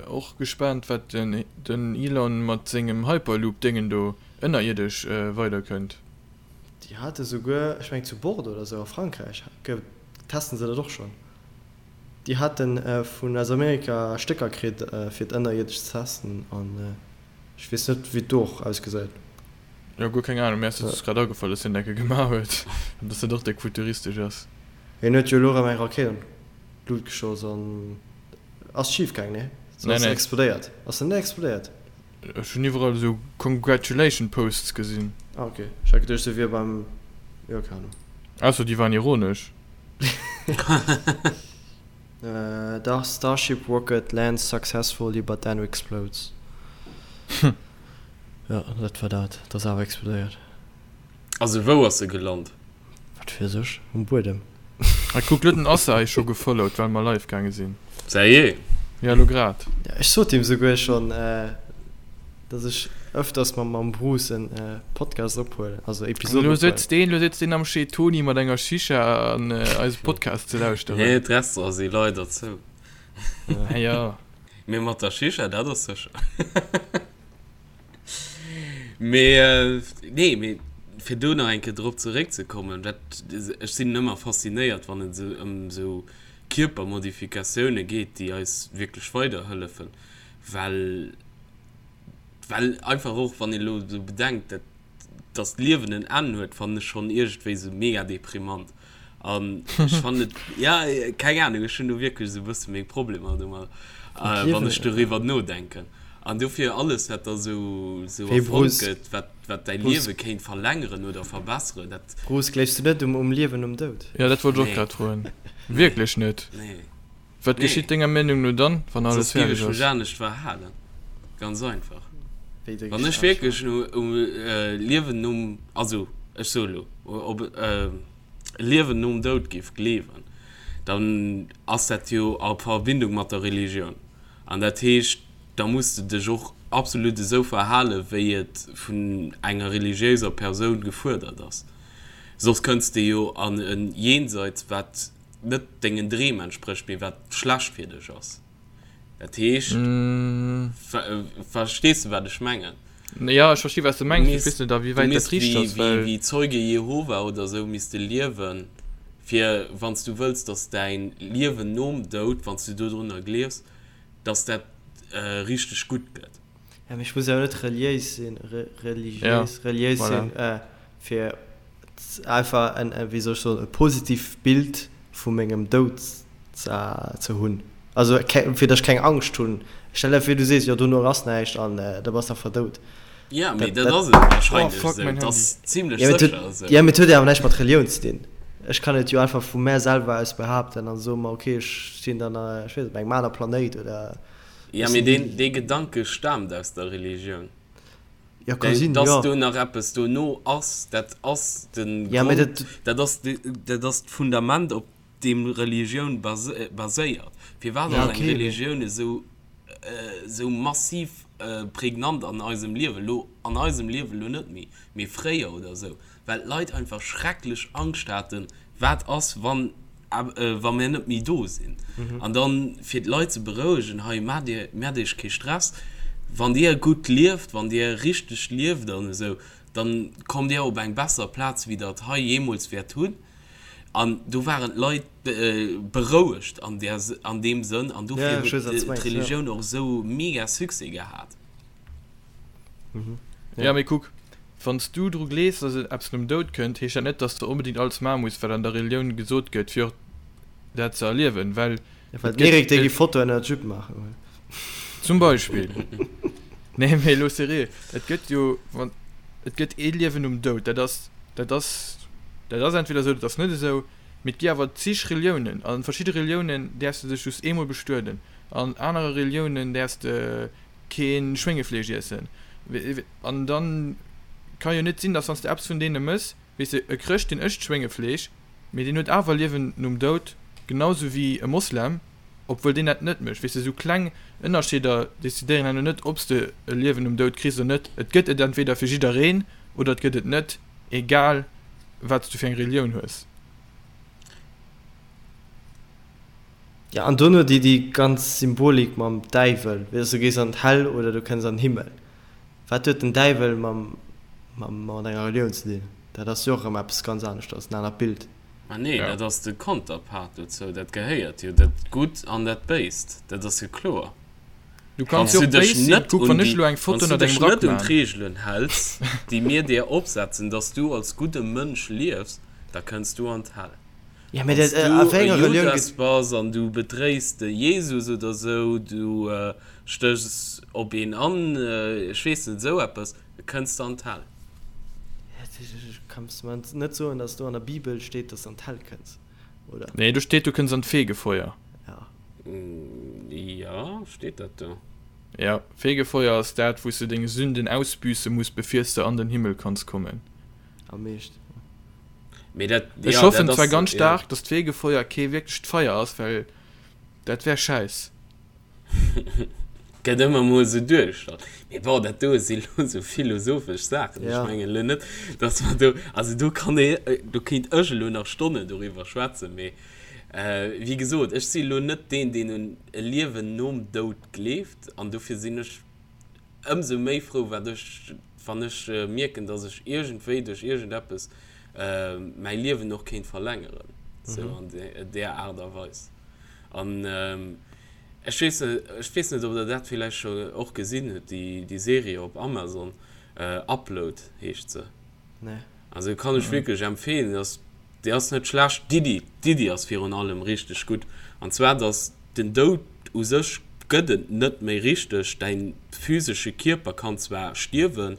och gespaant, wat den Elon mat sengem Hyperloop-Déngen do ënnerierdesch weiderkënnt. Déi hate souguer, ech mengen zu Bordeaux oder sou a Frankräich, testen se dat och schonn. Déi hate vun aus Amerika Stécker kritt fir et ënnerierdesch ze testen an ech weess net wéi et do och ausgesäit. Jo, guer keng Ahnung, mir ass et just grad agefall, dass hien dat gemaach huet an dass dat och déck futuristesch ass. Hien huet jo elo erëm eng Rakéit an d'Lut geschoss an ass schif gaang, nee? Se Nee, ass nee. explodéiert. Ass se net explodéiert? Ech hunn iwwerall esou Congratulation Posts gesinn. Ah ok, ech hat geduecht se wier beim, jo keng Ahnung. Ausser déi waren ironesch. Dach, Starship rocket lands successfully but then explodes. Jo, dat war dat. Et ass awer explodéiert. Also wou ass se gelant? Wat weess ech, um Buedem. Ah kuck, lo huet den Assa eis scho gefollowt well mer live gaange sinn. Seriö? Ja lo grad. Ja, ech sot him souguer schonn, dass ech ëfters mam mam Bruce en Podcast ophuelen, also Episoden Lo ophuelen. sëtzt deen, lo sëtzt deen am Chez Tony mat enger Shisha an eise Podcast ze lauschteren. Nee, d'Restaurante si leider zou. Ah jo. Mee mat der Shisha, dat ass sécher. Mee nee, mee fir do nach eng Kéier drop zeréckzekommen, dat, ech sinn ëmmer faszinéiert, wann et esou ëm esou Kierpermodifikatioune geet, déi eis wierklech weiderhëllefen, well, well einfach och, wann een elo esou bedenkt, dat, dass d'Liewen en Enn huet, fannen ech schonn iergendwéi esou mega deprimant. An ech fannen et, ja, keng Ahnung, ech hunn do wierklech esou e bësse meng Problemer domat, wann ech doriwwer nodenken. An dofir alles, wat da esou, esou Hey erfonnt Bruce, gëtt, wat, wat däi Bruce. Liewe kéint verlängeren oder verbesseren, dat. Bruce, gleefs du net um, um Liewen nom Doud? Ja, dat wollt ech och Nee. grad froen. Nee. Wierklech net? Nee. Wat Nee. geschitt denger Meenung no dann, wann alles Soss géif fäerdeg ech mech ass? anescht verhalen. Ganz einfach. Wéi de Wann ech anescht wierklech verhalen? no, um Liewen nom, also ech soe lo, op e Liewen nom Doud géif gleewen, dann ass dat jo a Verbindung mat der Religioun. An dat heescht, da muss de dech och absolut esou verhalen, wéi et vun enger religiéiser Persoun gefuerdert ass. Soss kënns de jo an e Jenseits, wat net dengen Dreem entsprécht, mee wat schlecht fir dech ass. Dat heescht, verstees de wat ech mengen? Jo, ech versti wat s de Du mengs, mee ech misst, weess net a wéi du wäit dat misst richteg wéi, ass, wéi, well. wéi Zeuge Jehova oder esou misst de liewen, fir wann s du wëlls, datt däin Liewen nom Doud, wann s du dodrunner gleefs, datt dat richteg gutt gëtt. Ja, mee ech muss jo net reliéis sinn, Ja, religiéis, reliéis voilà. sinn, fir einfach en, wéi soll ech soen, e positivt Bild vu mengem Doud ze hunn. Also fir datt ech keng Angscht hunn. Stell der vir, du sees, jo dono ass näischt an da bass de einfach dout. Ja, mee Dat, dat ass dat, et Oh wahrscheinlech fuck, esou. mäin Et Handy. ass zimlech ja, mee et sécher huet, esou. ja, mee et huet jo awer näischt mat Relioun ze dinn. Ech kann et jo einfach vu mär selwer aus behaapten an soen, ma okay, ech sinn dann, ech weess net, op engem aner Planéit oder Ja, ech mee sinn deen, dee Gedanke staamt aus der Religioun. Ja, ka sinn, Dass jo. do nach eppes dono ass, dat ass de Ja, mee Grond, dat. dat ass de, dat ass d'Fundament, op deem Religioun baséiert. Firwat Ja, ass eng okay, mee. Religioun esou, esou massiv? prägnant an eisem Liewen, elo an eisem Liewen elo net méi, mee fréier oder esou, well d'Leit einfach schrecklech Angscht haten, wat ass, wann, wa mir net méi do sinn. An dann, fir d'Leit ze berouegen, hei, maacht Dir, maacht Iech kee Stress, wann Dir gutt lieft, wann Dir richteg lieft an esou, dann kommt Dir op eng besser Plaz, wéi Der et hei jeemools wäert hunn. An do waren d'Leit berouegt an där, an deem Sënn. An dofir huet d'Religioun och esou mega Succès gehat. Jo, mee kuck, wann s du dru gleefs, dass et eppes nom Doud kënnt, heescht dat net, dass de onbedéngt alles maache muss, wat an der Relioun gesot gëtt, fir och dat ze erliewen, well et gëtt. Déi gi Fotoen ënner d'Jupe maachen. Zum Beispill. Nee, mee elo seriö, et gëtt jo, wann, et gëtt ee Liewen nom Doud, dat ass, dat ass, dat ass entweder esou, dat ass net esou, mee et gi awer zig Reliounen. A verschidde Reliounen däerfs de dech just eemol bestueden, an anere Reliounen däerfs de kee Schwéngefleesch iessen. An dann ka jo net sinn, dass wann s de eppes vun deene mëss, weess de, e Chrëscht deen ëscht Schwéngefleesch, mee deen huet awer Liewen nom Doud, genau sou wéi e Moslem, obwuel deen dat net mécht. Weess de, sou kleng Ënnerscheeder decidéieren herno net, ob s de e Liewen nom Doud kriss oder net. Et gëtt et entweder fir jiddereen oder et gëtt et net, egal wat s du fir eng Relioun hues. Jo, an dono déi déi ganz Symbolik mam Däiwel, weess du gees an d'Häll oder du kënns an den Himmel. Wat huet den Däiwel mam mam mat enger Relioun ze dinn? Dat ass jo och erëm eppes ganz aneschters, en anert Bild. Ma nee, dat ass de Konterpart dozou, dat gehéiert jo, dat Gutt an dat Béist, dat ass jo kloer. Du kanns jo och béis sinn, kuck wann ech elo eng Foto ënnert engem Rack Wann s du dech net un d'Reegelen häls, déi mir dir opsetzen, dass du als gudde Mënsch liefs, da kënns du an d'Häll. Ja, mee dat, a wéi enger Relioun gëtt. Wann s du e Judas bass an du bedréis de Jesus oder sou, du stéchs op een an, ech weess net, esou eppes, da kënns de an d'Häll. Kanns du mer net soen, dass do an der Bibel steet, dass de an d'Häll kënns, oder? Nee, do steet, du kënns an d'Fegefeuer. Ja. Jo, steet dat do? Ja, Fegefeuer ass dat, wou s de deng Sünden ausbüsse muss, bevir s de an den Himmel kanns kommen. Am meeschten. Mee dat, Ech ja, hoffen dat zwar ass, ganz ja. staark, dass d'Fegefeuer kee wierklecht Feier ass, well dat wär schäiss. Gëtt ëmmer mol esou duergestallt. Mee bon, dat do si lo esou philosophesch Saachen. Ech Ja. mengen elo net, dass mer do, also do kann ee, do kéint ech elo nach Stonnen doriwwer schwätzen. Mee wéi gesot, ech si elo net deen, deen un e Liewen nom Doud gleeft an dofir sinn ech Ëmsou méi frou wat ech, wann ech mierken, dass ech iergendwéi duerch iergendeppes mäi Liewen och kéint verlängeren, sou an där Aart a Weis. An ech weess net, ech weess net, ob der dat villäicht scho och gesinn hutt, déi Serie op Amazon, Upload heescht se. Nee. Also kann ech wierklech empfehlen, ass, déi ass net schlecht. D'Iddi, d'Iddi ass virun allem richteg gutt. An zwar, dass den Doud u sech gëtt et net méi richteg, däin physesche Kierper kann zwar stierwen,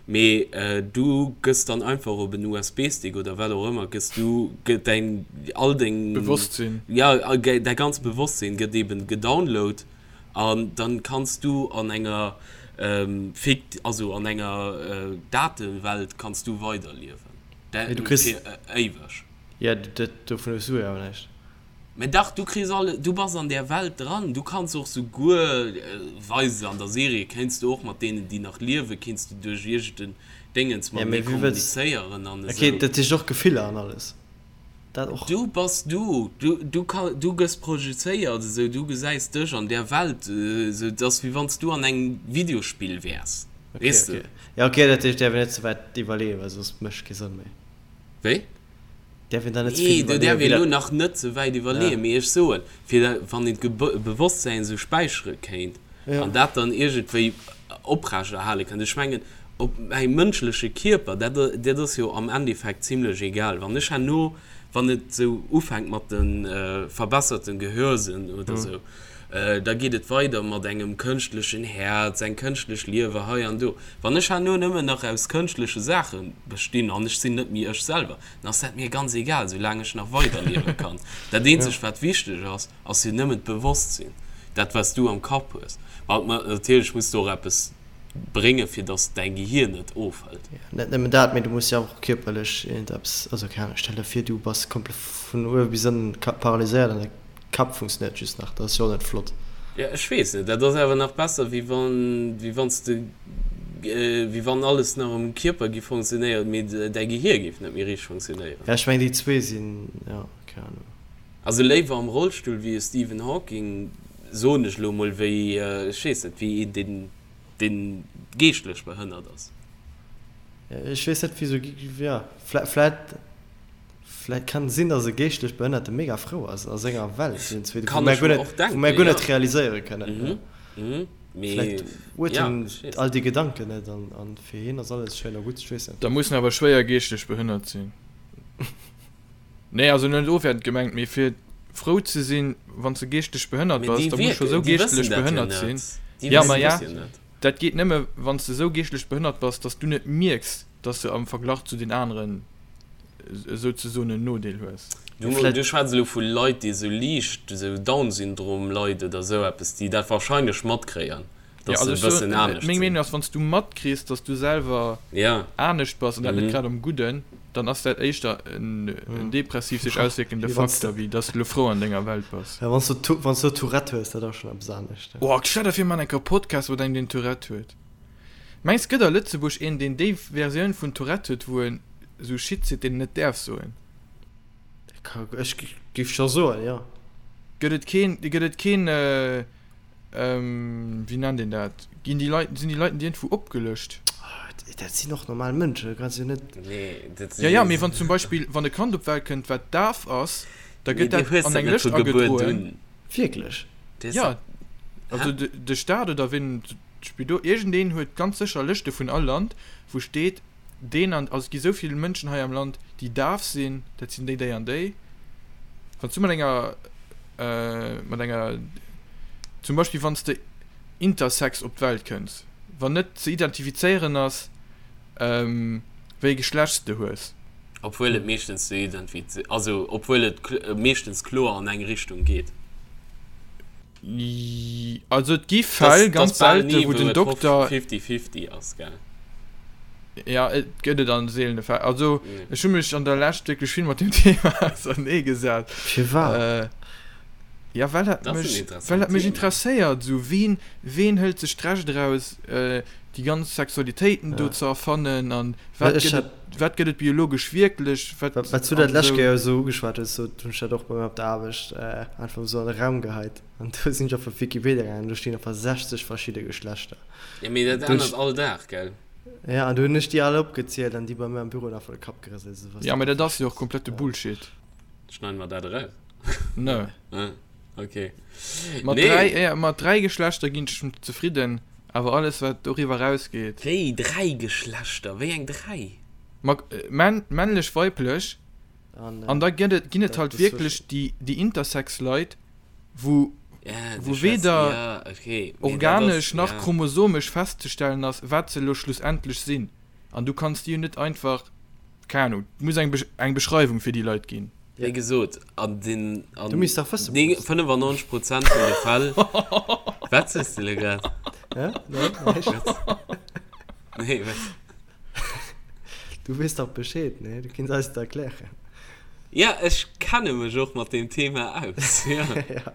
mee du gëss dann einfach op en USB-Stick oder wat och ëmmer, gëss du, gëtt däin, all deng, Bewosstsinn. ja, däi ganzt Bewosstsinn gëtt eben gedownload. An dann kanns du an enger fikt, also an enger Datewelt kanns du weiderliewen. Mee du kriss. Fir éiweg. Jo, dat, dovun hues du jo awer näischt. Mä dach, du kriss alle, du bass an där Welt dran. Du kanns och souguer, weise se an der Serie, kéints du och mat deenen, déi nach liewen, kéints du duerch iergend en Déngens Ja, matenee mee wéi wëlls. kommunizéieren an Okay, esou. dat heescht och Gefiller an alles. Dat och. Du bass du, du, du ka, du gëss projezéiert esou, du gesäis dech an där Welt esou, et ass wéi wann s du an engem Videospill wäers, Okay, weess de. okay. Ja, okay, dat heescht, däerf een net ze wäit iwwerleeën, well soss mécht kee Sënn méi. Wéi? Däerf een da net ze vill Nee, do iwwerleeën, däerf wéi een elo dat. nach net ze wäit Ja. iwwerleeën, mee ech soen, fir da, wann een d'Gebewosstsäin esou späichere kéint Ja. an dat dann iergendwéi oprechterhale kënnt, ech mengen, Op mäi mënschleche Kierper, dat, dat ass jo am Endeffekt zimlech egal. Wann ech herno, wann et esou ufänkt mat de verbesserten Gehörsënn oder esou, da geet et weider mat engem kënschtlechen Häerz, eng kënschtlech Liewer hei an do. Wann ech herno nëmmen nach aus kënschtleche Saache bestinn an ech sinn net méi ech selwer, dann ass dat mir ganz egal, soulaang ech nach weiderliewe kann. Dat eenzegt, wat wichteg ass, ass jo nëmmen d'Bewosstsinn, dat wat s du am Kapp hues. Ma natierlech muss du och eppes bréngen, fir dass däi Gehier net ofhëlt. Jo, net nëmmen dat, mee du muss jo och kierperlech iergendeppes, also keng Ahnung, stell der vir du bass komplett vun uewe bis ënnen paralyséiert an däi Kapp funktionéiert just nach, dat ass jo och net flott. Ja, ech weess net, dat ass awer nach besser, wéi wann, wéi wann s de, wéi wann alles nach am Kierper géif funktionéieren, mee däi Gehier géif net méi richteg funktionéieren. Ja, ech mengen, déi zwee sinn, jo, keng Ahnung. Also léiwer am Rollstull wéi e Stephen Hawking, soen ech elo mol, wéi, ech weess net, wéi een, deen, deen geeschtlech behënnert ass. Ech weess net, wéi sou, jo, vläit. Vläit kann sinn, dass e geeschtlech Behënnerte mega frou ass a senger Welt, iergendzwéi, wou mär guer net, wou mär guer net realiséiere kënnen. Vläit huet en all déi Gedanken net an an fir hien ass alles schéin a gutt, ech weess net. Da muss en awer schwéier geeschtlech behënnert sinn. Nee, also net ofwäertend gemengt, mee fir frou ze sinn, wann s de geeschtlech behënnert bass, da muss scho sou geeschtlech behënnert sinn. Jo, ma ja, dat geet nëmme wann s de sou geeschtlech behënnert bass, dass du net mierks, dass de am Verglach zu den aneren souzesoen en Nodeel hues. Du, du schwätz elo vu Leit, déi esou liicht esou Down-Syndrom-Leit oder esou eppes, déi dat wahrscheinlech matkréien, dass se e bëssen anescht sinn. Meng Meenung ass, wann s du matkriss, dass du selwer anescht bass an dat net grad am Gudden, dann ass dat éischter en depressiv sech auswierkende Faktor, wéi dass du elo frou an denger Welt bass. Wann s du Tourette hues, dat ass schonn eppes anescht. Oh, stell der vir, mir man enker e Podcast mat engem, deen Tourette huet. Mengs gëtt a Lëtzebuerg een deen déi Versioun vun Tourette huet wou en sou Shit seet deen en net däerf soen? Ech géif scho soen, jo. Gëtt et keen, gëtt et keen, wéi nennt een dat, ginn déi Leit, sinn déi Leiten déi iergendwou opgelëscht? Dat sinn och normal Mënschen, du kanns jo net. Nee, dat sinn. Jo, jo, mee wann zum Beispill, wann e Kand op d'Welt kënnt wat daf ass, da gëtt dat an eng Lëscht agedroen. Wierklech? Jo, also de Staat oder wien. D'Spidol, iergendeen huet ganz sécher Lëschte vun all Land, wou steet, deen an, also et gi sou vill Mënschen hei am Land, déi daf sinn, dat sinn déi, déi an déi. Wann s du mat enger, mat enger, zum Beispill wann s de intersex op d'Welt kënns, wann net ze identifizéieren ass, wéi e Geschlecht s de hues. Obwuel et meeschtens ze identifiz, also obwuel et meeschtens kloer an eng Richtung geet. Also et gi Fäll, ganz selte, wou den Dokter. 50-50 ass, gell? Ja, et gëtt et an seelene Fäll. Also ech hu mech an der Lescht wierklech vill mat deem Thema auserneegesat. Firwat? Ja, well dat mech, well dat mech interesséiert. Esou, ween, ween hëlt sech d'Recht eraus, déi ganz Sexualitéiten do ze erfannen an wat gëtt et, wat gëtt et biologesch wierklech, wat. Wat s du dat lescht Kéier esou ugeschwat hues, do hunn ech dat och bei mir op der Aarbecht einfach esou an de Raum geheit an do sinn ech op Wikipedia gaangen an do stinn einfach 60 verschidde Geschlechter. Jo, mee dat ännert all Dag, gell? Jo, an do hunn ech déi all opgezielt an déi bei mir am Büro hunn einfach de Kapp gerëselt, esou was. Jo, mee dat ass jo och komplette Bullshit. Schneiden mer dat eraus? Nö. Okay. Mat nee. dräi, ja, mat dräi Geschlechter ginn ech zefridden, awer alles wat doriwwer rausgeet. Wéi dräi Geschlechter? Wéi eng dräi? Ma, männ, männlech, weiblech. An, an da gëtt et, ginn et halt wierklech déi, déi Intersex-Leit, wou, ja, wou weder ja, okay. organesch nach ja. chromosomesch festzestellen ass, wat se elo schlussendlech sinn. An du kanns déi jo net einfach, keng Ahnung, et muss eng, eng Beschreiwung fir déi Leit ginn. Wéi gesot, an den an Du misst dach wëssen, Bruce. 95 Prozent vun de Fäll. Wat sees de elo grad? Hä? Nee, näischt. Nee, wat? Du weess dach Bescheed, nee? Du kinns eis et erklären. Ja, ech kenne mech och mat deem Thema aus, ja. Ja.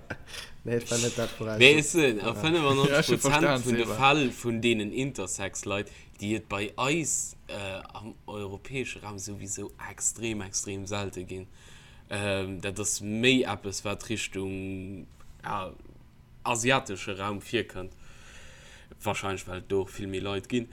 Nee, et war net dat, woraus Mee ech soen, a Ja, ech 95 hu Prozent verstan, vun de Seba. Fäll vun deenen Intersex-Leit, déi et bei eis am europäesche Raum souwisou extrem, extrem selte ginn. Dat ass méi eppes, wat Richtung asiatesche Raum virkënnt, wahrscheinlech well et do och vill méi Leit ginn.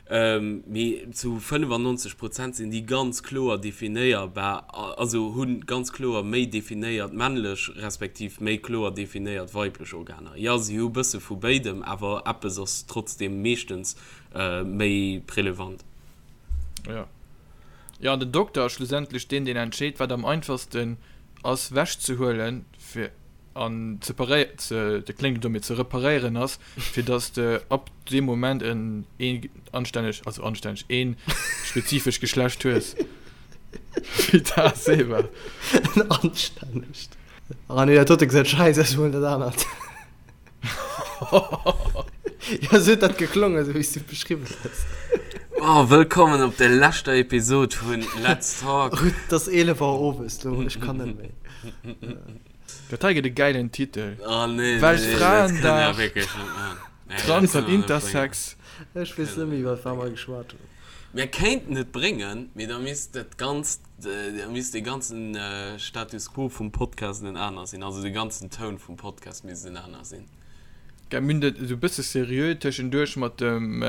Mee zu 95 Prozent sinn déi ganz kloer definéierbar, also hu ganz kloer méi definéiert männlech respektiv méi kloer definéiert weiblech Organer. Jo, si hu bësse vu béidem, awer eppes ass trotzdeem meeschtens méi prelevant. Jo. Jo, an den Dokter ass schlussendlech deen, deen entscheet, wat am einfachsten ass wechzehuelen, fir an ze paréi-, ze, dat kléngt elo domm, mee ze reparéieren ass, fir dass de ab deem Moment en een anstänneg, also anstänneg, een spezifescht Geschlecht hues. Wéi dat Seba. En anstännegt. Ah nee, dat dote gesäit scheiss aus, ech huelen dat anert. Ja, sou huet dat geklongen, sou wéi s du et beschriwwen hues. Oh, wëllkommen op der leschter Episod vun Let's Talk. Ruth, et ass 11 Auer owes lo, ech kann net méi. Dat hei gëtt e gäilen Titel. Oh nee, Weltfraendag, Trans an Intersex. Ech weess net méi iwwer wat mer geschwat hunn. Mir kéinten et bréngen, mee da misst dat ganzt, da misst dee ganzen Status quo vum Podcast en aner sinn, also de ganzen Toun vum Podcast misst en aner sinn. Gell, mir hunn dat esou e bësse seriö tëschenduerch mat dem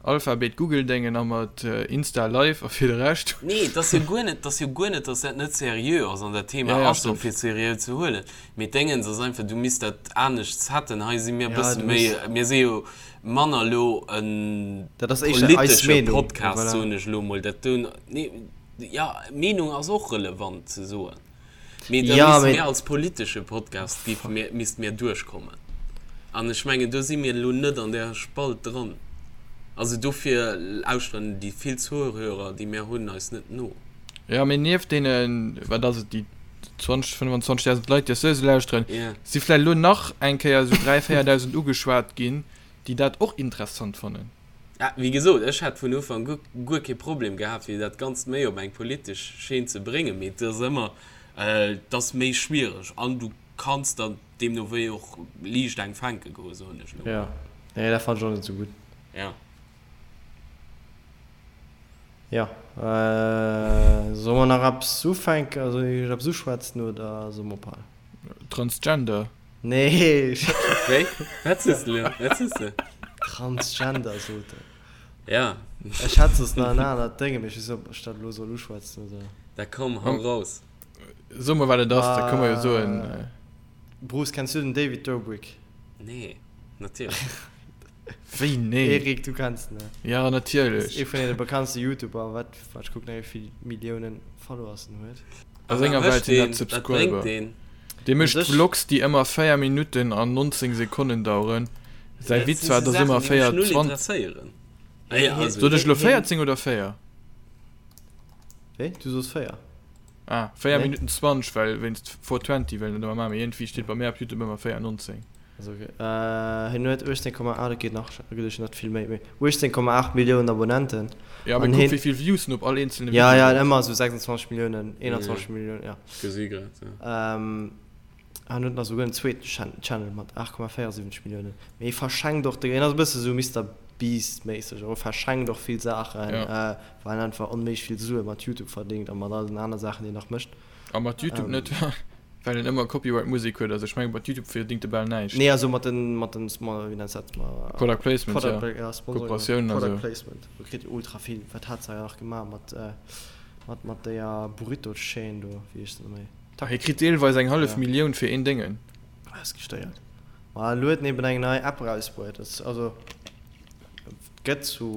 Alphabet Google Déngen a mat Insta Live a fir de Rescht. Nee, et ass jo guer net, et ass jo guer net, datt dat net seriö ass an dat Thema Ja, ja, ass och stimmt. fir seriö ze huelen. Mee d'Déngens ass einfach, du misst dat anescht setten. Hei si mir e Ja, bësse du méi, muss. mir si jo manner elo e Dat ass éischter eis politesche Meenung, Podcast, voilà. soen ech elo mol. Dat do, nee, ja, Meenung ass och relevant ze soen. Mee da Ja, misste mee. mir als politesche Podcast, géife mir, misste mir duerchkommen. An ech mengen, do si mir elo net an där Spalt dran. Also dofir lauschteren déi vill Zuhörer, déi mir hunn, eis net no. Ja, mee nieft deenen, wat ass et, déi 20, 25.000 Leit, déi eis souwisou lauschteren, Ja. si vläicht elo nach eng Kéier esou 3.000, 4.000 ugeschwat ginn, déi dat och interessant fannen. Ja, wéi gesot, ech hätt vun Ufank u guer kee Problem gehat, fir dat Ganzt méi op eng politesch Scheen ze bréngen, mee et ass ëmmer, et ass méi schwiereg an du kanns der deemno wéi och liicht eng fänke goen, soen ech elo Ja, mol. nee, dat fannen ech och net esou gutt. Ja. Ja, solle mer nach eppes ufänken, also eppes uschwätzen oder solle mer ophalen? Transgender. Nee. Wéi? Wat sees de elo? Wat sees de? Transgender sot en. Ja. Ech hat soss nach en anert Dénge, mee ech weess net, ob ech dat elo soll uschwätzen oder. Da komm, hau raus. So mol, wat et ass, da kënne mer jo soen. Bruce, kenns du den David Dobrik? Nee, natierlech. Wéi nee? Eric, du kenns en, ne? Ja, natierlech. Ass ee vun deene bekanntste YouTuber, wat, wat ech kucken, wéi vill Milliounen Followers en huet. A senger Welt sinn dat Subscriber. Dee mécht Vlogs déi ëmmer 4 Minutten an 19 Sekonnen daueren. Säi Witz war dass ëmmer 4 20. Sot ech elo 14 oder 4? Wéi? Du soos 4. Ah, 4 Minutten 20, well wéinst 420 well net ëmmer maachen, mee iergendwéi steet bei mär op Youtube ëmmer 4 19. Also ok, hien huet 18, ah dat geet nach, dat geet net vill méi, mee 18,8 Milliounen Abonnenten. Ja, mee kuck wéi vill Views en op all eenzelne Video huet. Ja, ja, ëmmer esou 26 Milliounen, 21 Milliounen, ja. Gesi grad, ja. An huet nach esouguer en zweeten Channel mat 8,74 Milliounen. Mee hie verschenkt och, hien ass e bësse sou Mister Beast-méisseg, e verschenkt och vill Saachen, well en einfach onméiglech vill Sue mat YouTube verdéngt a mat all den aner Saachen, déi en nach mécht. A mat YouTube net? Well en ëmmer Copyright Musek huet, also ech mengen mat Youtube verdingt e bal näischt. Nee also mat den mat den wéi nenns dat mat Product Placement Product ja Sponsoring Kooperatiounen a Product Placement do kritt e ultra vill. Wat hat se nach gemaach mat mat mat deeër Burrito Chaîne do wéi heescht se méi? Hie kritt deelweis eng hallef Millioun fir een Déngen. Dat ass gestéiert. Ma elo huet en eben eng nei App erausbruet also et gëtt zu.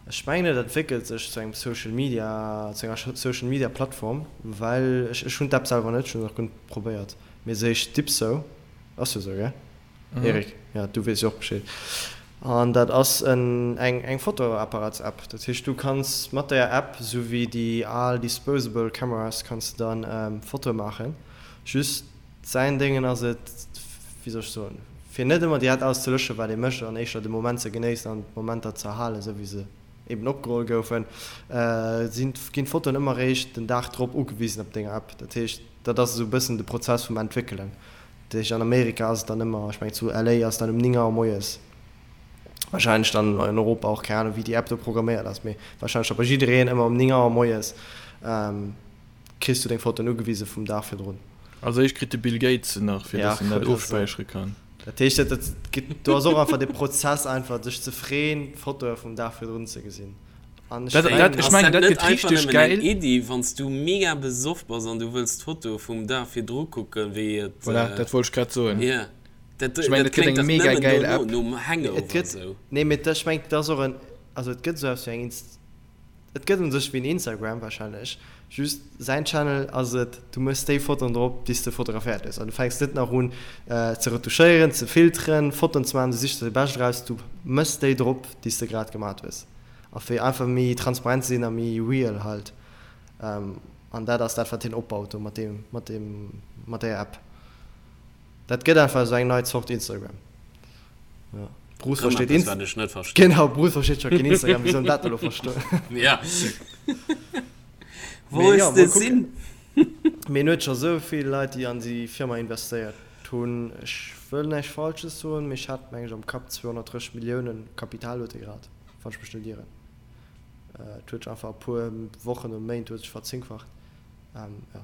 Ech mengen et entwéckelt sech zu engem Social Media, zu enger Social Media Plattform, well ech ech hunn d'App selwer net, ech hunn se nach guer net probéiert, mee se heescht Dipso, ass jo esou gell Eric? Jo du weess jo och Bescheed. An dat ass en eng eng Fotoapparatsapp, dat heescht du kanns mat där App, esou wéi déi al disposable cameras, kanns de dann Fotoe maachen, just Säin Déngen ass et, wéi soll ech soen, fir net ëmmer direkt alles ze löschen, wat ee mécht, an éischter de Moment ze genéissen an d'Momenter ze erhalen, esou wéi se eben opgeholl goufen, sinn, ginn d'Fotoen ëmmer eréischt den Dag drop ugewisen op denger App. Dat heescht, dat ass esou e bëssen de Prozess vum Entwéckelen. Dat heescht, an Amerika ass et dann ëmmer, ech mengen zu LA ass et dann um 9 Auer moies, wahrscheinlech dann an Europa och, keng Ahnung, wéi déi App do programméiert ass, mee wahrscheinlech da bei jiddereen ëmmer um 9 Auer moies. Kriss du deng Fotoen ugewise vum Dag virdrun? Als éischt kritt de Bill Gates se nach, fir dass en dat ofspäichere kann. Dat heescht, dat gëtt, do ass och einfach de Prozess einfach sech ze freeën, d'Fotoe vum Dag virdrun ze gesinn. An ech mengen, ech mengen, dat gëtt richteg gäil. Ass dat net einfach nëmmen eng Iddi, wann s du mega besoff bass an du wëlls d'Fotoe vum Dag virdru kucken, wéi et. Voilà, dat wollt ech grad soen. Jo, dat Ech mengen, dat gëtt kléngt eng dach mega nëmmen gäil dono, App. nom Hangover Et gëtt, esou. nee, mee ech mengen, dat ass och en, also et gëtt esou eppes wéi eng Inst. Et gëtt un sech wéi en Instagram wahrscheinlech, just säin Channel ass et, du mëss déi Fotoen drop déi s de fotograféiert hues an du fänks net nach un ze retouchéieren, ze filteren, Fotoen ze maachen, du sichs der déi bescht eraus, du mëss déi drop déi s de grad gemat hues a fir einfach méi transparent ze sinn a méi real halt an dat ass dat wat hien opbaut do mat deem mat deem mat där App. Dat gëtt einfach esou eng nei Zort Instagram. Ja. Bruce Rëm versteet eppes, Inst wat ech net verstinn. Genau, Bruce versteet scho keen Instagram, wéi soll en dat elo verstoen? Ja. Wou Mee ass ja, de mol kucken. Sinn? Mee en huet scho sou vill Leit, déi an déi Firma investéiert hunn. Ech wëll näischt Falsches soen, mee ech hat, meng ech, am Kapp 230 Milliounen Kapital huet e grad, wann ech mech net ieren. Et huet sech einfach a puer Wochen oder Méint huet sech verzéngfacht. Jo.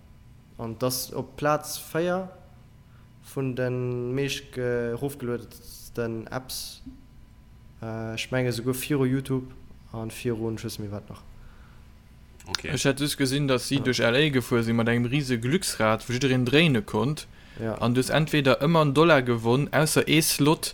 An et ass op Plaz 4 vun de meescht erofgeluedensten Apps. Ech menge souguer viru Youtube a virun ech weess net méi wat nach. Okay. Ech hat just gesinn, dass si duerch LA gefuer sinn mat engem rise Glücksrad, wou jiddereen dréine konnt. Ja. An du hues entweder ëmmer en Dollar gewonn, ausser ee Slot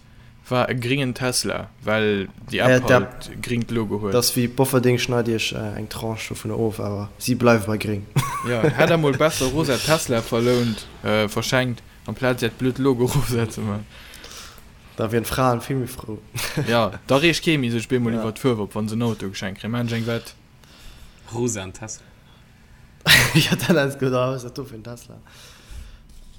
war e gringen Tesla, well déi Ja, App d'App, halt e gringt Logo dat huet. ass wéi Bofferding schneit iech eng Tranche dovunner of, awer si bleiwe bei gring. Ja, hätt der mol besser rosa Tesla verlount, verschenkt, amplaz äert blöd Logo rosa ze man. Da wieren d'Fraen vill méi frou. Ja, da reegt kee méi sech bemol Ja. iwwer d'Fuerw op, wann se en Auto geschenkt kréien. Maan ech eng Wett. Rosaen Tesla. Ja, dat ass gutt. Ah, wat ass dat do fir en Tesla?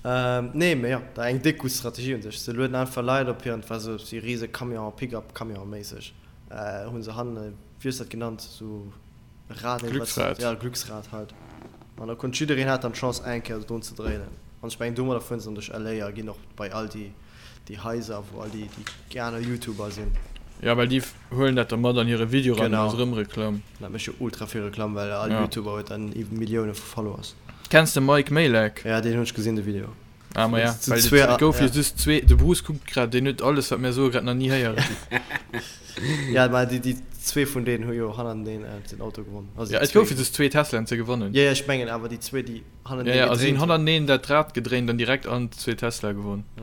Ähm, nee, mee jo, dat eng déck gutt Strategie un sech. Se lueden einfach Leit op hiren, et war sou si rise Camion, Pick-up Camion méisseg, hunn se hannen, wéi hues de dat genannt, sou e Rad, nee, wat, Glücksrad. ja, Glücksrad halt. An da konnt jiddereen hat dann d'Chance eng Kéier drun ze dréinen. An ech mengen domadder fueren se dann duerch LA a ginn och bei all déi, déi Haiser, wou all déi, déi aner Youtuber sinn. Ja, well déi huelen dat da mat an hire Video ran, Genau. ass erëm Reklamm. Dat mécht jo ultra vill Reklamm, well all Ja. Youtuber huet dann iwwer Millioune vu Followers. Kenns de Mike Majlak? Ja, deen hunn ech gesinn, de Video. Ah, ma ja, Zu well zwee, et gouf jo ja. just zwee, de Bruce kuckt grad, deen huet alles, wat mär soe, grad nach ni héieren. Ja, ma déi, déi zwee vun deenen hu jo hannerteneen den Auto gewonn. Also Ja, déi et goufe zwee. just zwee Teslaen ze gewannen. Ja, ja, ech mengen awer déi zwee, déi hannerteneen Ja, ja, a si hunn gedréint hunn. hannerteneen dat Rad gedréint an direkt an zwee Tesla gewonn. Ja.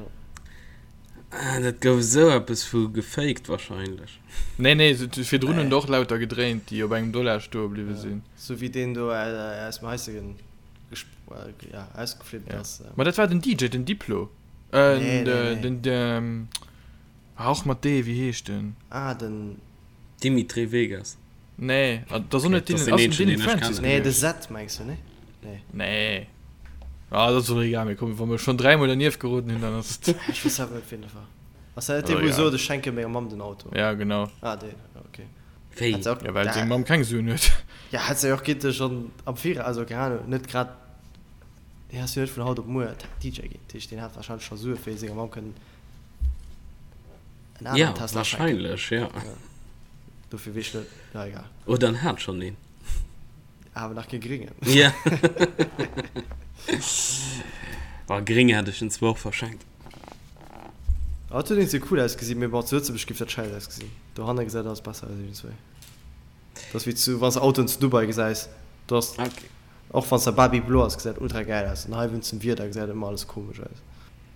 Ah, dat gouf esou eppes vu gefaked wahrscheinlech. Nee, nee, virdrun hunn der och lauter gedréint, déi op engem Dollar stoe bliwwe sinn. Sou wéi deen do aus dem Haisegen ja, ausgeflippt ass. Ma dat war den DJ, den Diplo. Nee, nee, nee. Den, ah, och mat D, wéi heescht den? Ah, den. Dimitri Vegas. Nee, dat ass och net Dylan, ass den Dillon Francis Nee, de Zed mengs du, nee? Nee. Nee. Ah, dat ass och egal, mee komm, wa mer schonn dräimol dernieft geroden hunn, dann ass et. Ech weess awer net, wien dat war. Ass dat net dee, wou sot, ech schenke menger Mamm den Auto? Ja, genau. Ah, deen, okay. Wéi? Hätt se och. Ja, well seng Mamm keng Suen huet. Ja, hätt se jo och gitte schonn am Viraus, also keng Ahnung, net grad, deen ass jo net vun haut op muer DJ ginn, dat heescht, deen hat warscheinlech scho Sue fir senger Mamm kënnen en aneren Ja, Tesla schenken. warscheinlech, ja. Dofir weess ech net, na egal. Oder en hat schonn een. Awer nach kee gréngen. Ja. Boah, gréng hätt ech en zwar och verschenkt. Ah, et huet iergendwéi cool ausgesinn, mee bon, zu Lëtzebuerg géif dat schäiss ausgesinn. Dohanne gesäit alles besser aus iergendswéi. Dat ass wéi zu, wann s de Autoen zu Dubai gesäis, do ass, Okay. och wann s de Baby-Blo ass, gesäit ultra gäil aus. An hei wéinst dem Wieder gesäit ëmmer alles komesch aus.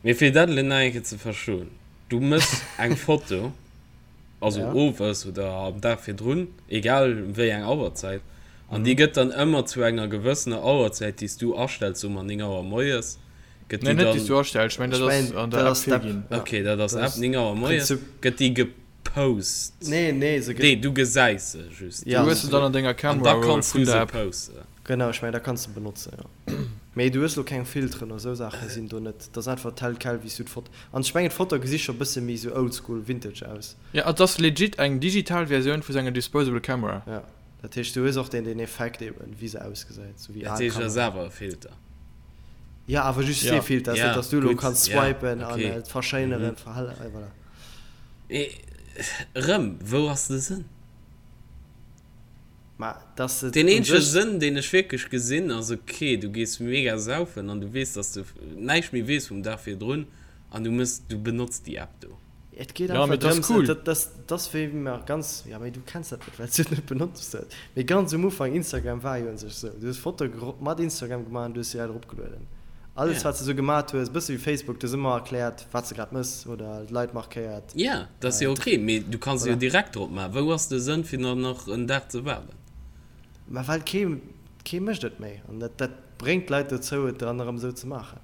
Mee fir dat elo nach eng Kéier ze verstoen, du mëss eng Foto, also Ja. owes oder am Dag virdrun, egal wéi eng Auerzäit, an déi gëtt dann ëmmer zu enger gewëssener Auerzäit, déi s du astells, soe mer 9 Auer moies, gëtt Nee, déi net déi s dann, du astells, ech mengen Ech dat ass mengen, an dat der App ass d'App, virginn. ja. okay, dat ass Dat App, ass 9 Auer moies, Prinzip. gëtt déi gepost. Nee, nee, se gëtt. Nee, du gesäis se just. Ja. Du hues se dann an denger An Camera da Roll kanns vun du der se App. posten. Genau, ech mengen, da kanns de benotzen, jo. Mee du hues lo keng Filteren oder sou Saachen sinn do net. Dat ass einfach tel quel wéi s du d'Foto. An ech mengen d'Foto gesi scho bësse méi sou oldschool vintage aus. Ja, et ass legit eng digital Versioun vu senger disposable Camera. Ja, dat heescht du hues och deen deen Effekt eben wéi se ausgesäit, sou wéi Dat al heescht ass Kameraen. awer e Filter. Ja, awer just Ja. dee Filter, ass Ja, net dass du lo gutt, kanns ja, swipen an okay. et verschéineren, verhellen, voilà. Mee erëm, wou ass de Sënn? Mä dass et Deen un eenzege sech. Sënn, deen ech wierklech gesinn, ass, ok, du gees mega saufen an du weess, dass du näischt méi weess vum Dag virdrun an du mëss, du benotz déi App do. Et geet Ja, einfach mee 't ass drëms, cool. dat, dat, dat ass wéi mer ganz, ja mee du kenns dat net, well s du et net benotzt hues, mee ganz um Ufank, Instagram war jo un sech esou, du hues Fotoe mat Instagram gemaach an du hues se direkt eropgelueden. Alles Ja. wat s de esou gemat hues, bësse wéi Facebook, du hues ëmmer erkläert, wat s de grad mëss oder d'Leit markéiert. Ja, dat ass jo ok, mee du kanns se jo Voilà. direkt drop maachen. Wou ass de Sënn fir dann nach en Dag ze waarden? Mä well kee, kee mécht et méi an dat, dat bréngt d'Leit dozou et dann erëm esou ze maachen.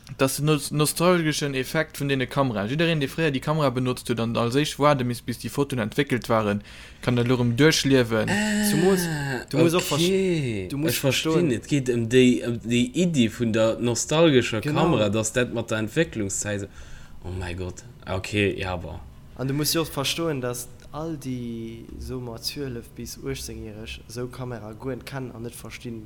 Et ass den nostalgeschen Effekt vun deene Kameraen. Jiddereen, dee fréier déi Kamera benotzt huet an als éischt waarde misst, bis déi Fotoen entwéckelt waren, kann dat elo erëm duerchliewen. Zumools, du muss och Ah, ok, du muss ech verstinn. verstoen. Et geet ëm déi, ëm déi Iddi vun der nostalgescher Genau. Kamera, dass dat mat der Entwécklungszäit esou, oh mäi Gott, ok, ja, bon. An du muss jo och verstoen, dass all déi, soe mer, 12 bis 18 Järeg esou Kamera guer net kennen an net verstinn,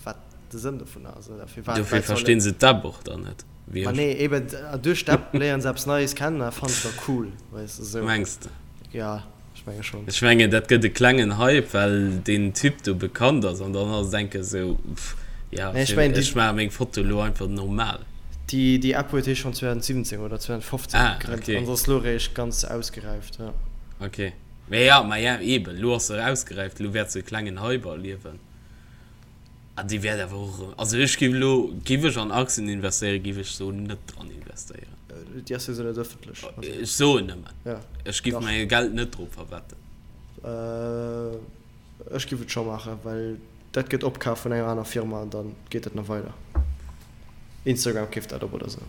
wat. de Sënn dovunner. Also firwat Dofir Leit solle. verstinn se d'App och dann net, wéi Ma ech. nee, eben duerch d'App léieren se eppes Neies kennen a fannen se da cool, weess de esou. Mengs de? Ja, ech menge schonn. Ech mengen dat gëtt e klengen Hype, well deen Typ do bekannt ass an dann ass et enke sou, pff, ja, Nee, ech fir, mengen déi. ech maache meng Foto elo einfach normal. Déi, déi App huet hie schonn 2017 oder 2015 Ah, gegrënnt okay. an se ass elo eréischt ganz ausgeräift, ja. Okay. Mee ja, ma ja, eben, elo ass se ausgeräift, elo wäert se e klengen Hype erliewen. An déi wäert awer och erëm, also ech géif elo, géif ech an Aktien investéieren, géif ech do net dran investéieren. Déi ass jo esou net ëffentlech. Also. Ech soen nëmmen, Ja, ech géif dach. mäi Geld net drop verwetten. Ech géif et scho maachen, well dat gëtt opkaf vun enger aner Firma an da geet dat nach weider. Instagram keeft dat op oder esou.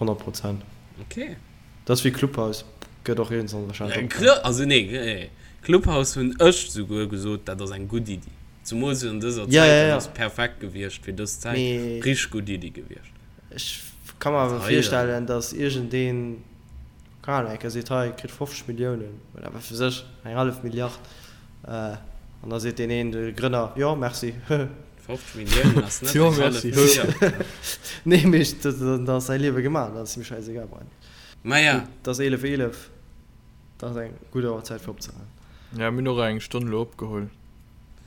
100 Prozent. Ok. Dat ass wéi Clubhouse, gëtt och iergendwann wahrscheinlech opkaf. Clu, also nee, nee, Clubhouse hunn ech souguer gesot, dat ass eng gutt Iddi. Zemools an dëser Ja, Zäit, ja, dat ja. ass perfekt gewiescht fir dës Zäit, Mee richteg gutt Iddi gewiescht. ech ka mer awer Hei dann. virstellen, datt iergendeen, keng Ahnung, eng Kéier seet, hei, kritt 50 Milliounen oder wat weess ech, eng hallef Milliard, an da seet deen een, de Grënner, jo, merci. 50 Milliounen ass net Jo, eng hallef merci. Milliard. Nee, mee dann ass säi Liewe gemaach, dann ass him schäisegal. Maja. Gutt, et ass 11, 11, dat ass eng gutt Auerzäit fir opzehalen. Ja, mir hunn och eng Stonn elo opgeholl.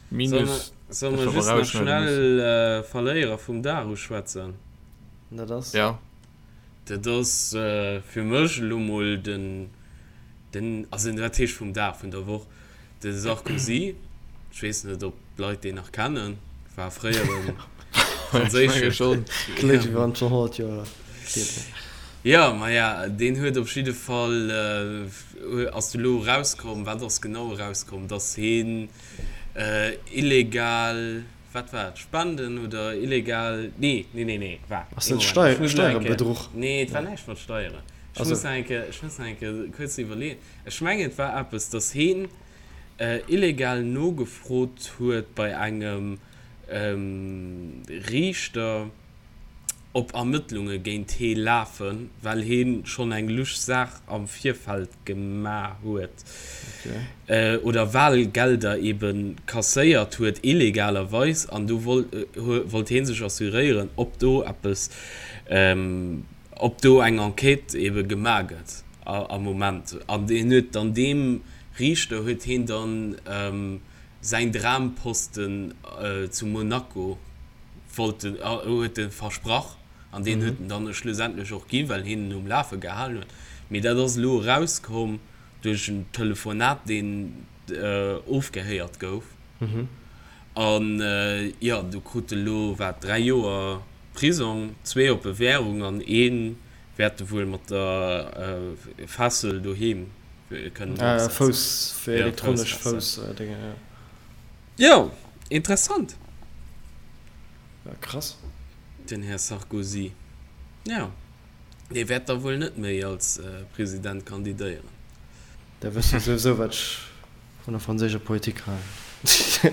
Solle Minus, solle dat mer wat mer just nach rausschneide müssen. schnell Verléierer vum Dag uschwätzen? Dat ass? Ja. Dat ass fir mech elo mol den, den, also wat heescht vum Dag, vun der Woch, De Sarkozy, ech weess net ob d'Leit deen nach kennen, war fréiere franséische. Kléngt wéi wann et schonn 100 Joer hier wär. Jo, maja, deen huet op jidde Fall, ass du elo erauskomm, wat ass genau erauskomm, datt heen illegal, wat war et, Spenden oder illegal, nee, nee, nee, nee, waart, Ass ee dat Moment, ech muss elo eng Kéier, Steierebedruch? nee, et war näischt mat Steieren, ech muss nach eng Kéier, ech muss nach eng Kéier kuerz iwwerleeën. Ech mengen et war eppes, dass heen illegal nogefrot huet bei engem Riichter, ob Ermëttlunge géint hee lafen, well hee schonn eng lusch Saach am Virfeld gemaach huet oder Wahlgelder ebe kasséiert huet illegalerweis an do wollt hee sech assuréieren, ob do eppes, ob do eng Enquête ebe gemaach gëtt. Am Moment. An hien huet dann deem Riichter huet hien dann säin Dramposten zu Monaco wollt en, huet e versprach an deen huet en dann schlussendlech och ginn, well hien en um Lafe gehalen huet. Mee dat ass elo erauskomm duerch en Telefonat, deen ofgehéiert gouf. An jo, do krut e lo wat, 3 Joer Prisong, zwee op Bewährung an een Wäert e wuel mat der Fessel doheem kënnen opsetzen. Fouss, fir elektronesch Fouss-Déngen, jo. Jo, interessant. Ja, krass. Den Här Sarkozy, jo, dee wäert da wuel net méi als President kandidéieren. Da wësst Der souwisou, wat ech Vun der franséischer Politik halen.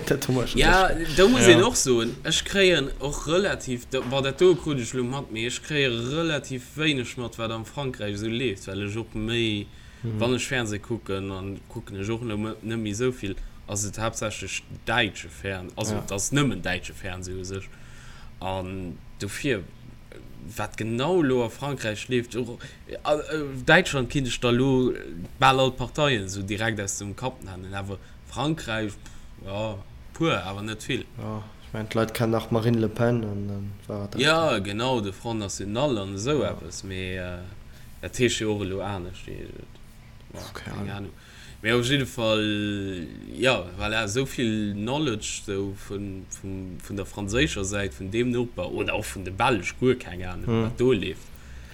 Dat hu mer scho Ja, duerch. do muss een Ja. och soen, ech kréien och relativ, bon dat do krut ech elo mat, mee ech kréie relativ wéineg mat, wat am Frankräich esou leeft, well ech och méi, wann ech Fernseh kucken, an kucken ech och elo net méi esou vill, ass et haaptsächlech däitsche Fern, also Ja. et ass nëmmen däitsche Fernseh u sech. An dofir, wat genau elo a Frankräich leeft, och Däitschland kinnt ech der elo bal all d'Parteien esou direkt aus dem Kapp nennen, awer Frankräich, jo, puer, awer net vill. Jo, ech mengen d'Leit kennen nach d'Marine Le Pen an dann war et dat. Jo, genau, de Front National an esou eppes, mee dat heescht jo och elo anescht, keng Ahnung. Mee op jidde Fall, jo, voilà, esou vill Knowledge sou vun, vun der franséischer Säit, vun deem Noper oder och vun de Belsch, guer keng Ahnung, wat do leeft.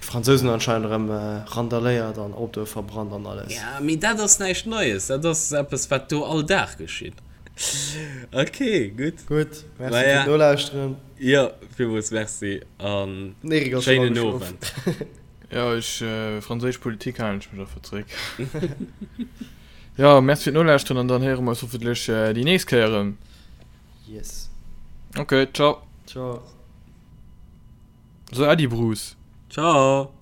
D'Fransousen hunn anscheinend erëm randaléiert an Autoe verbrannt an alles. Ja, mee dat ass näischt Neies, dat ass eppes, wat do all Dag geschitt. Ok, gutt. Gutt, merci fir d'Nolauschteren. Jo, villmools merci a schéinen Owend. Jo, ech, franséisch Politik halen ech mech einfach zréck. Jo, merci fir d'Nolauschteren an dann héiere mer eis hoffentlech déi nächst Kéier erëm. Yes. Ok, ciao. Ciao. So, Äddi Bruce. Ciao.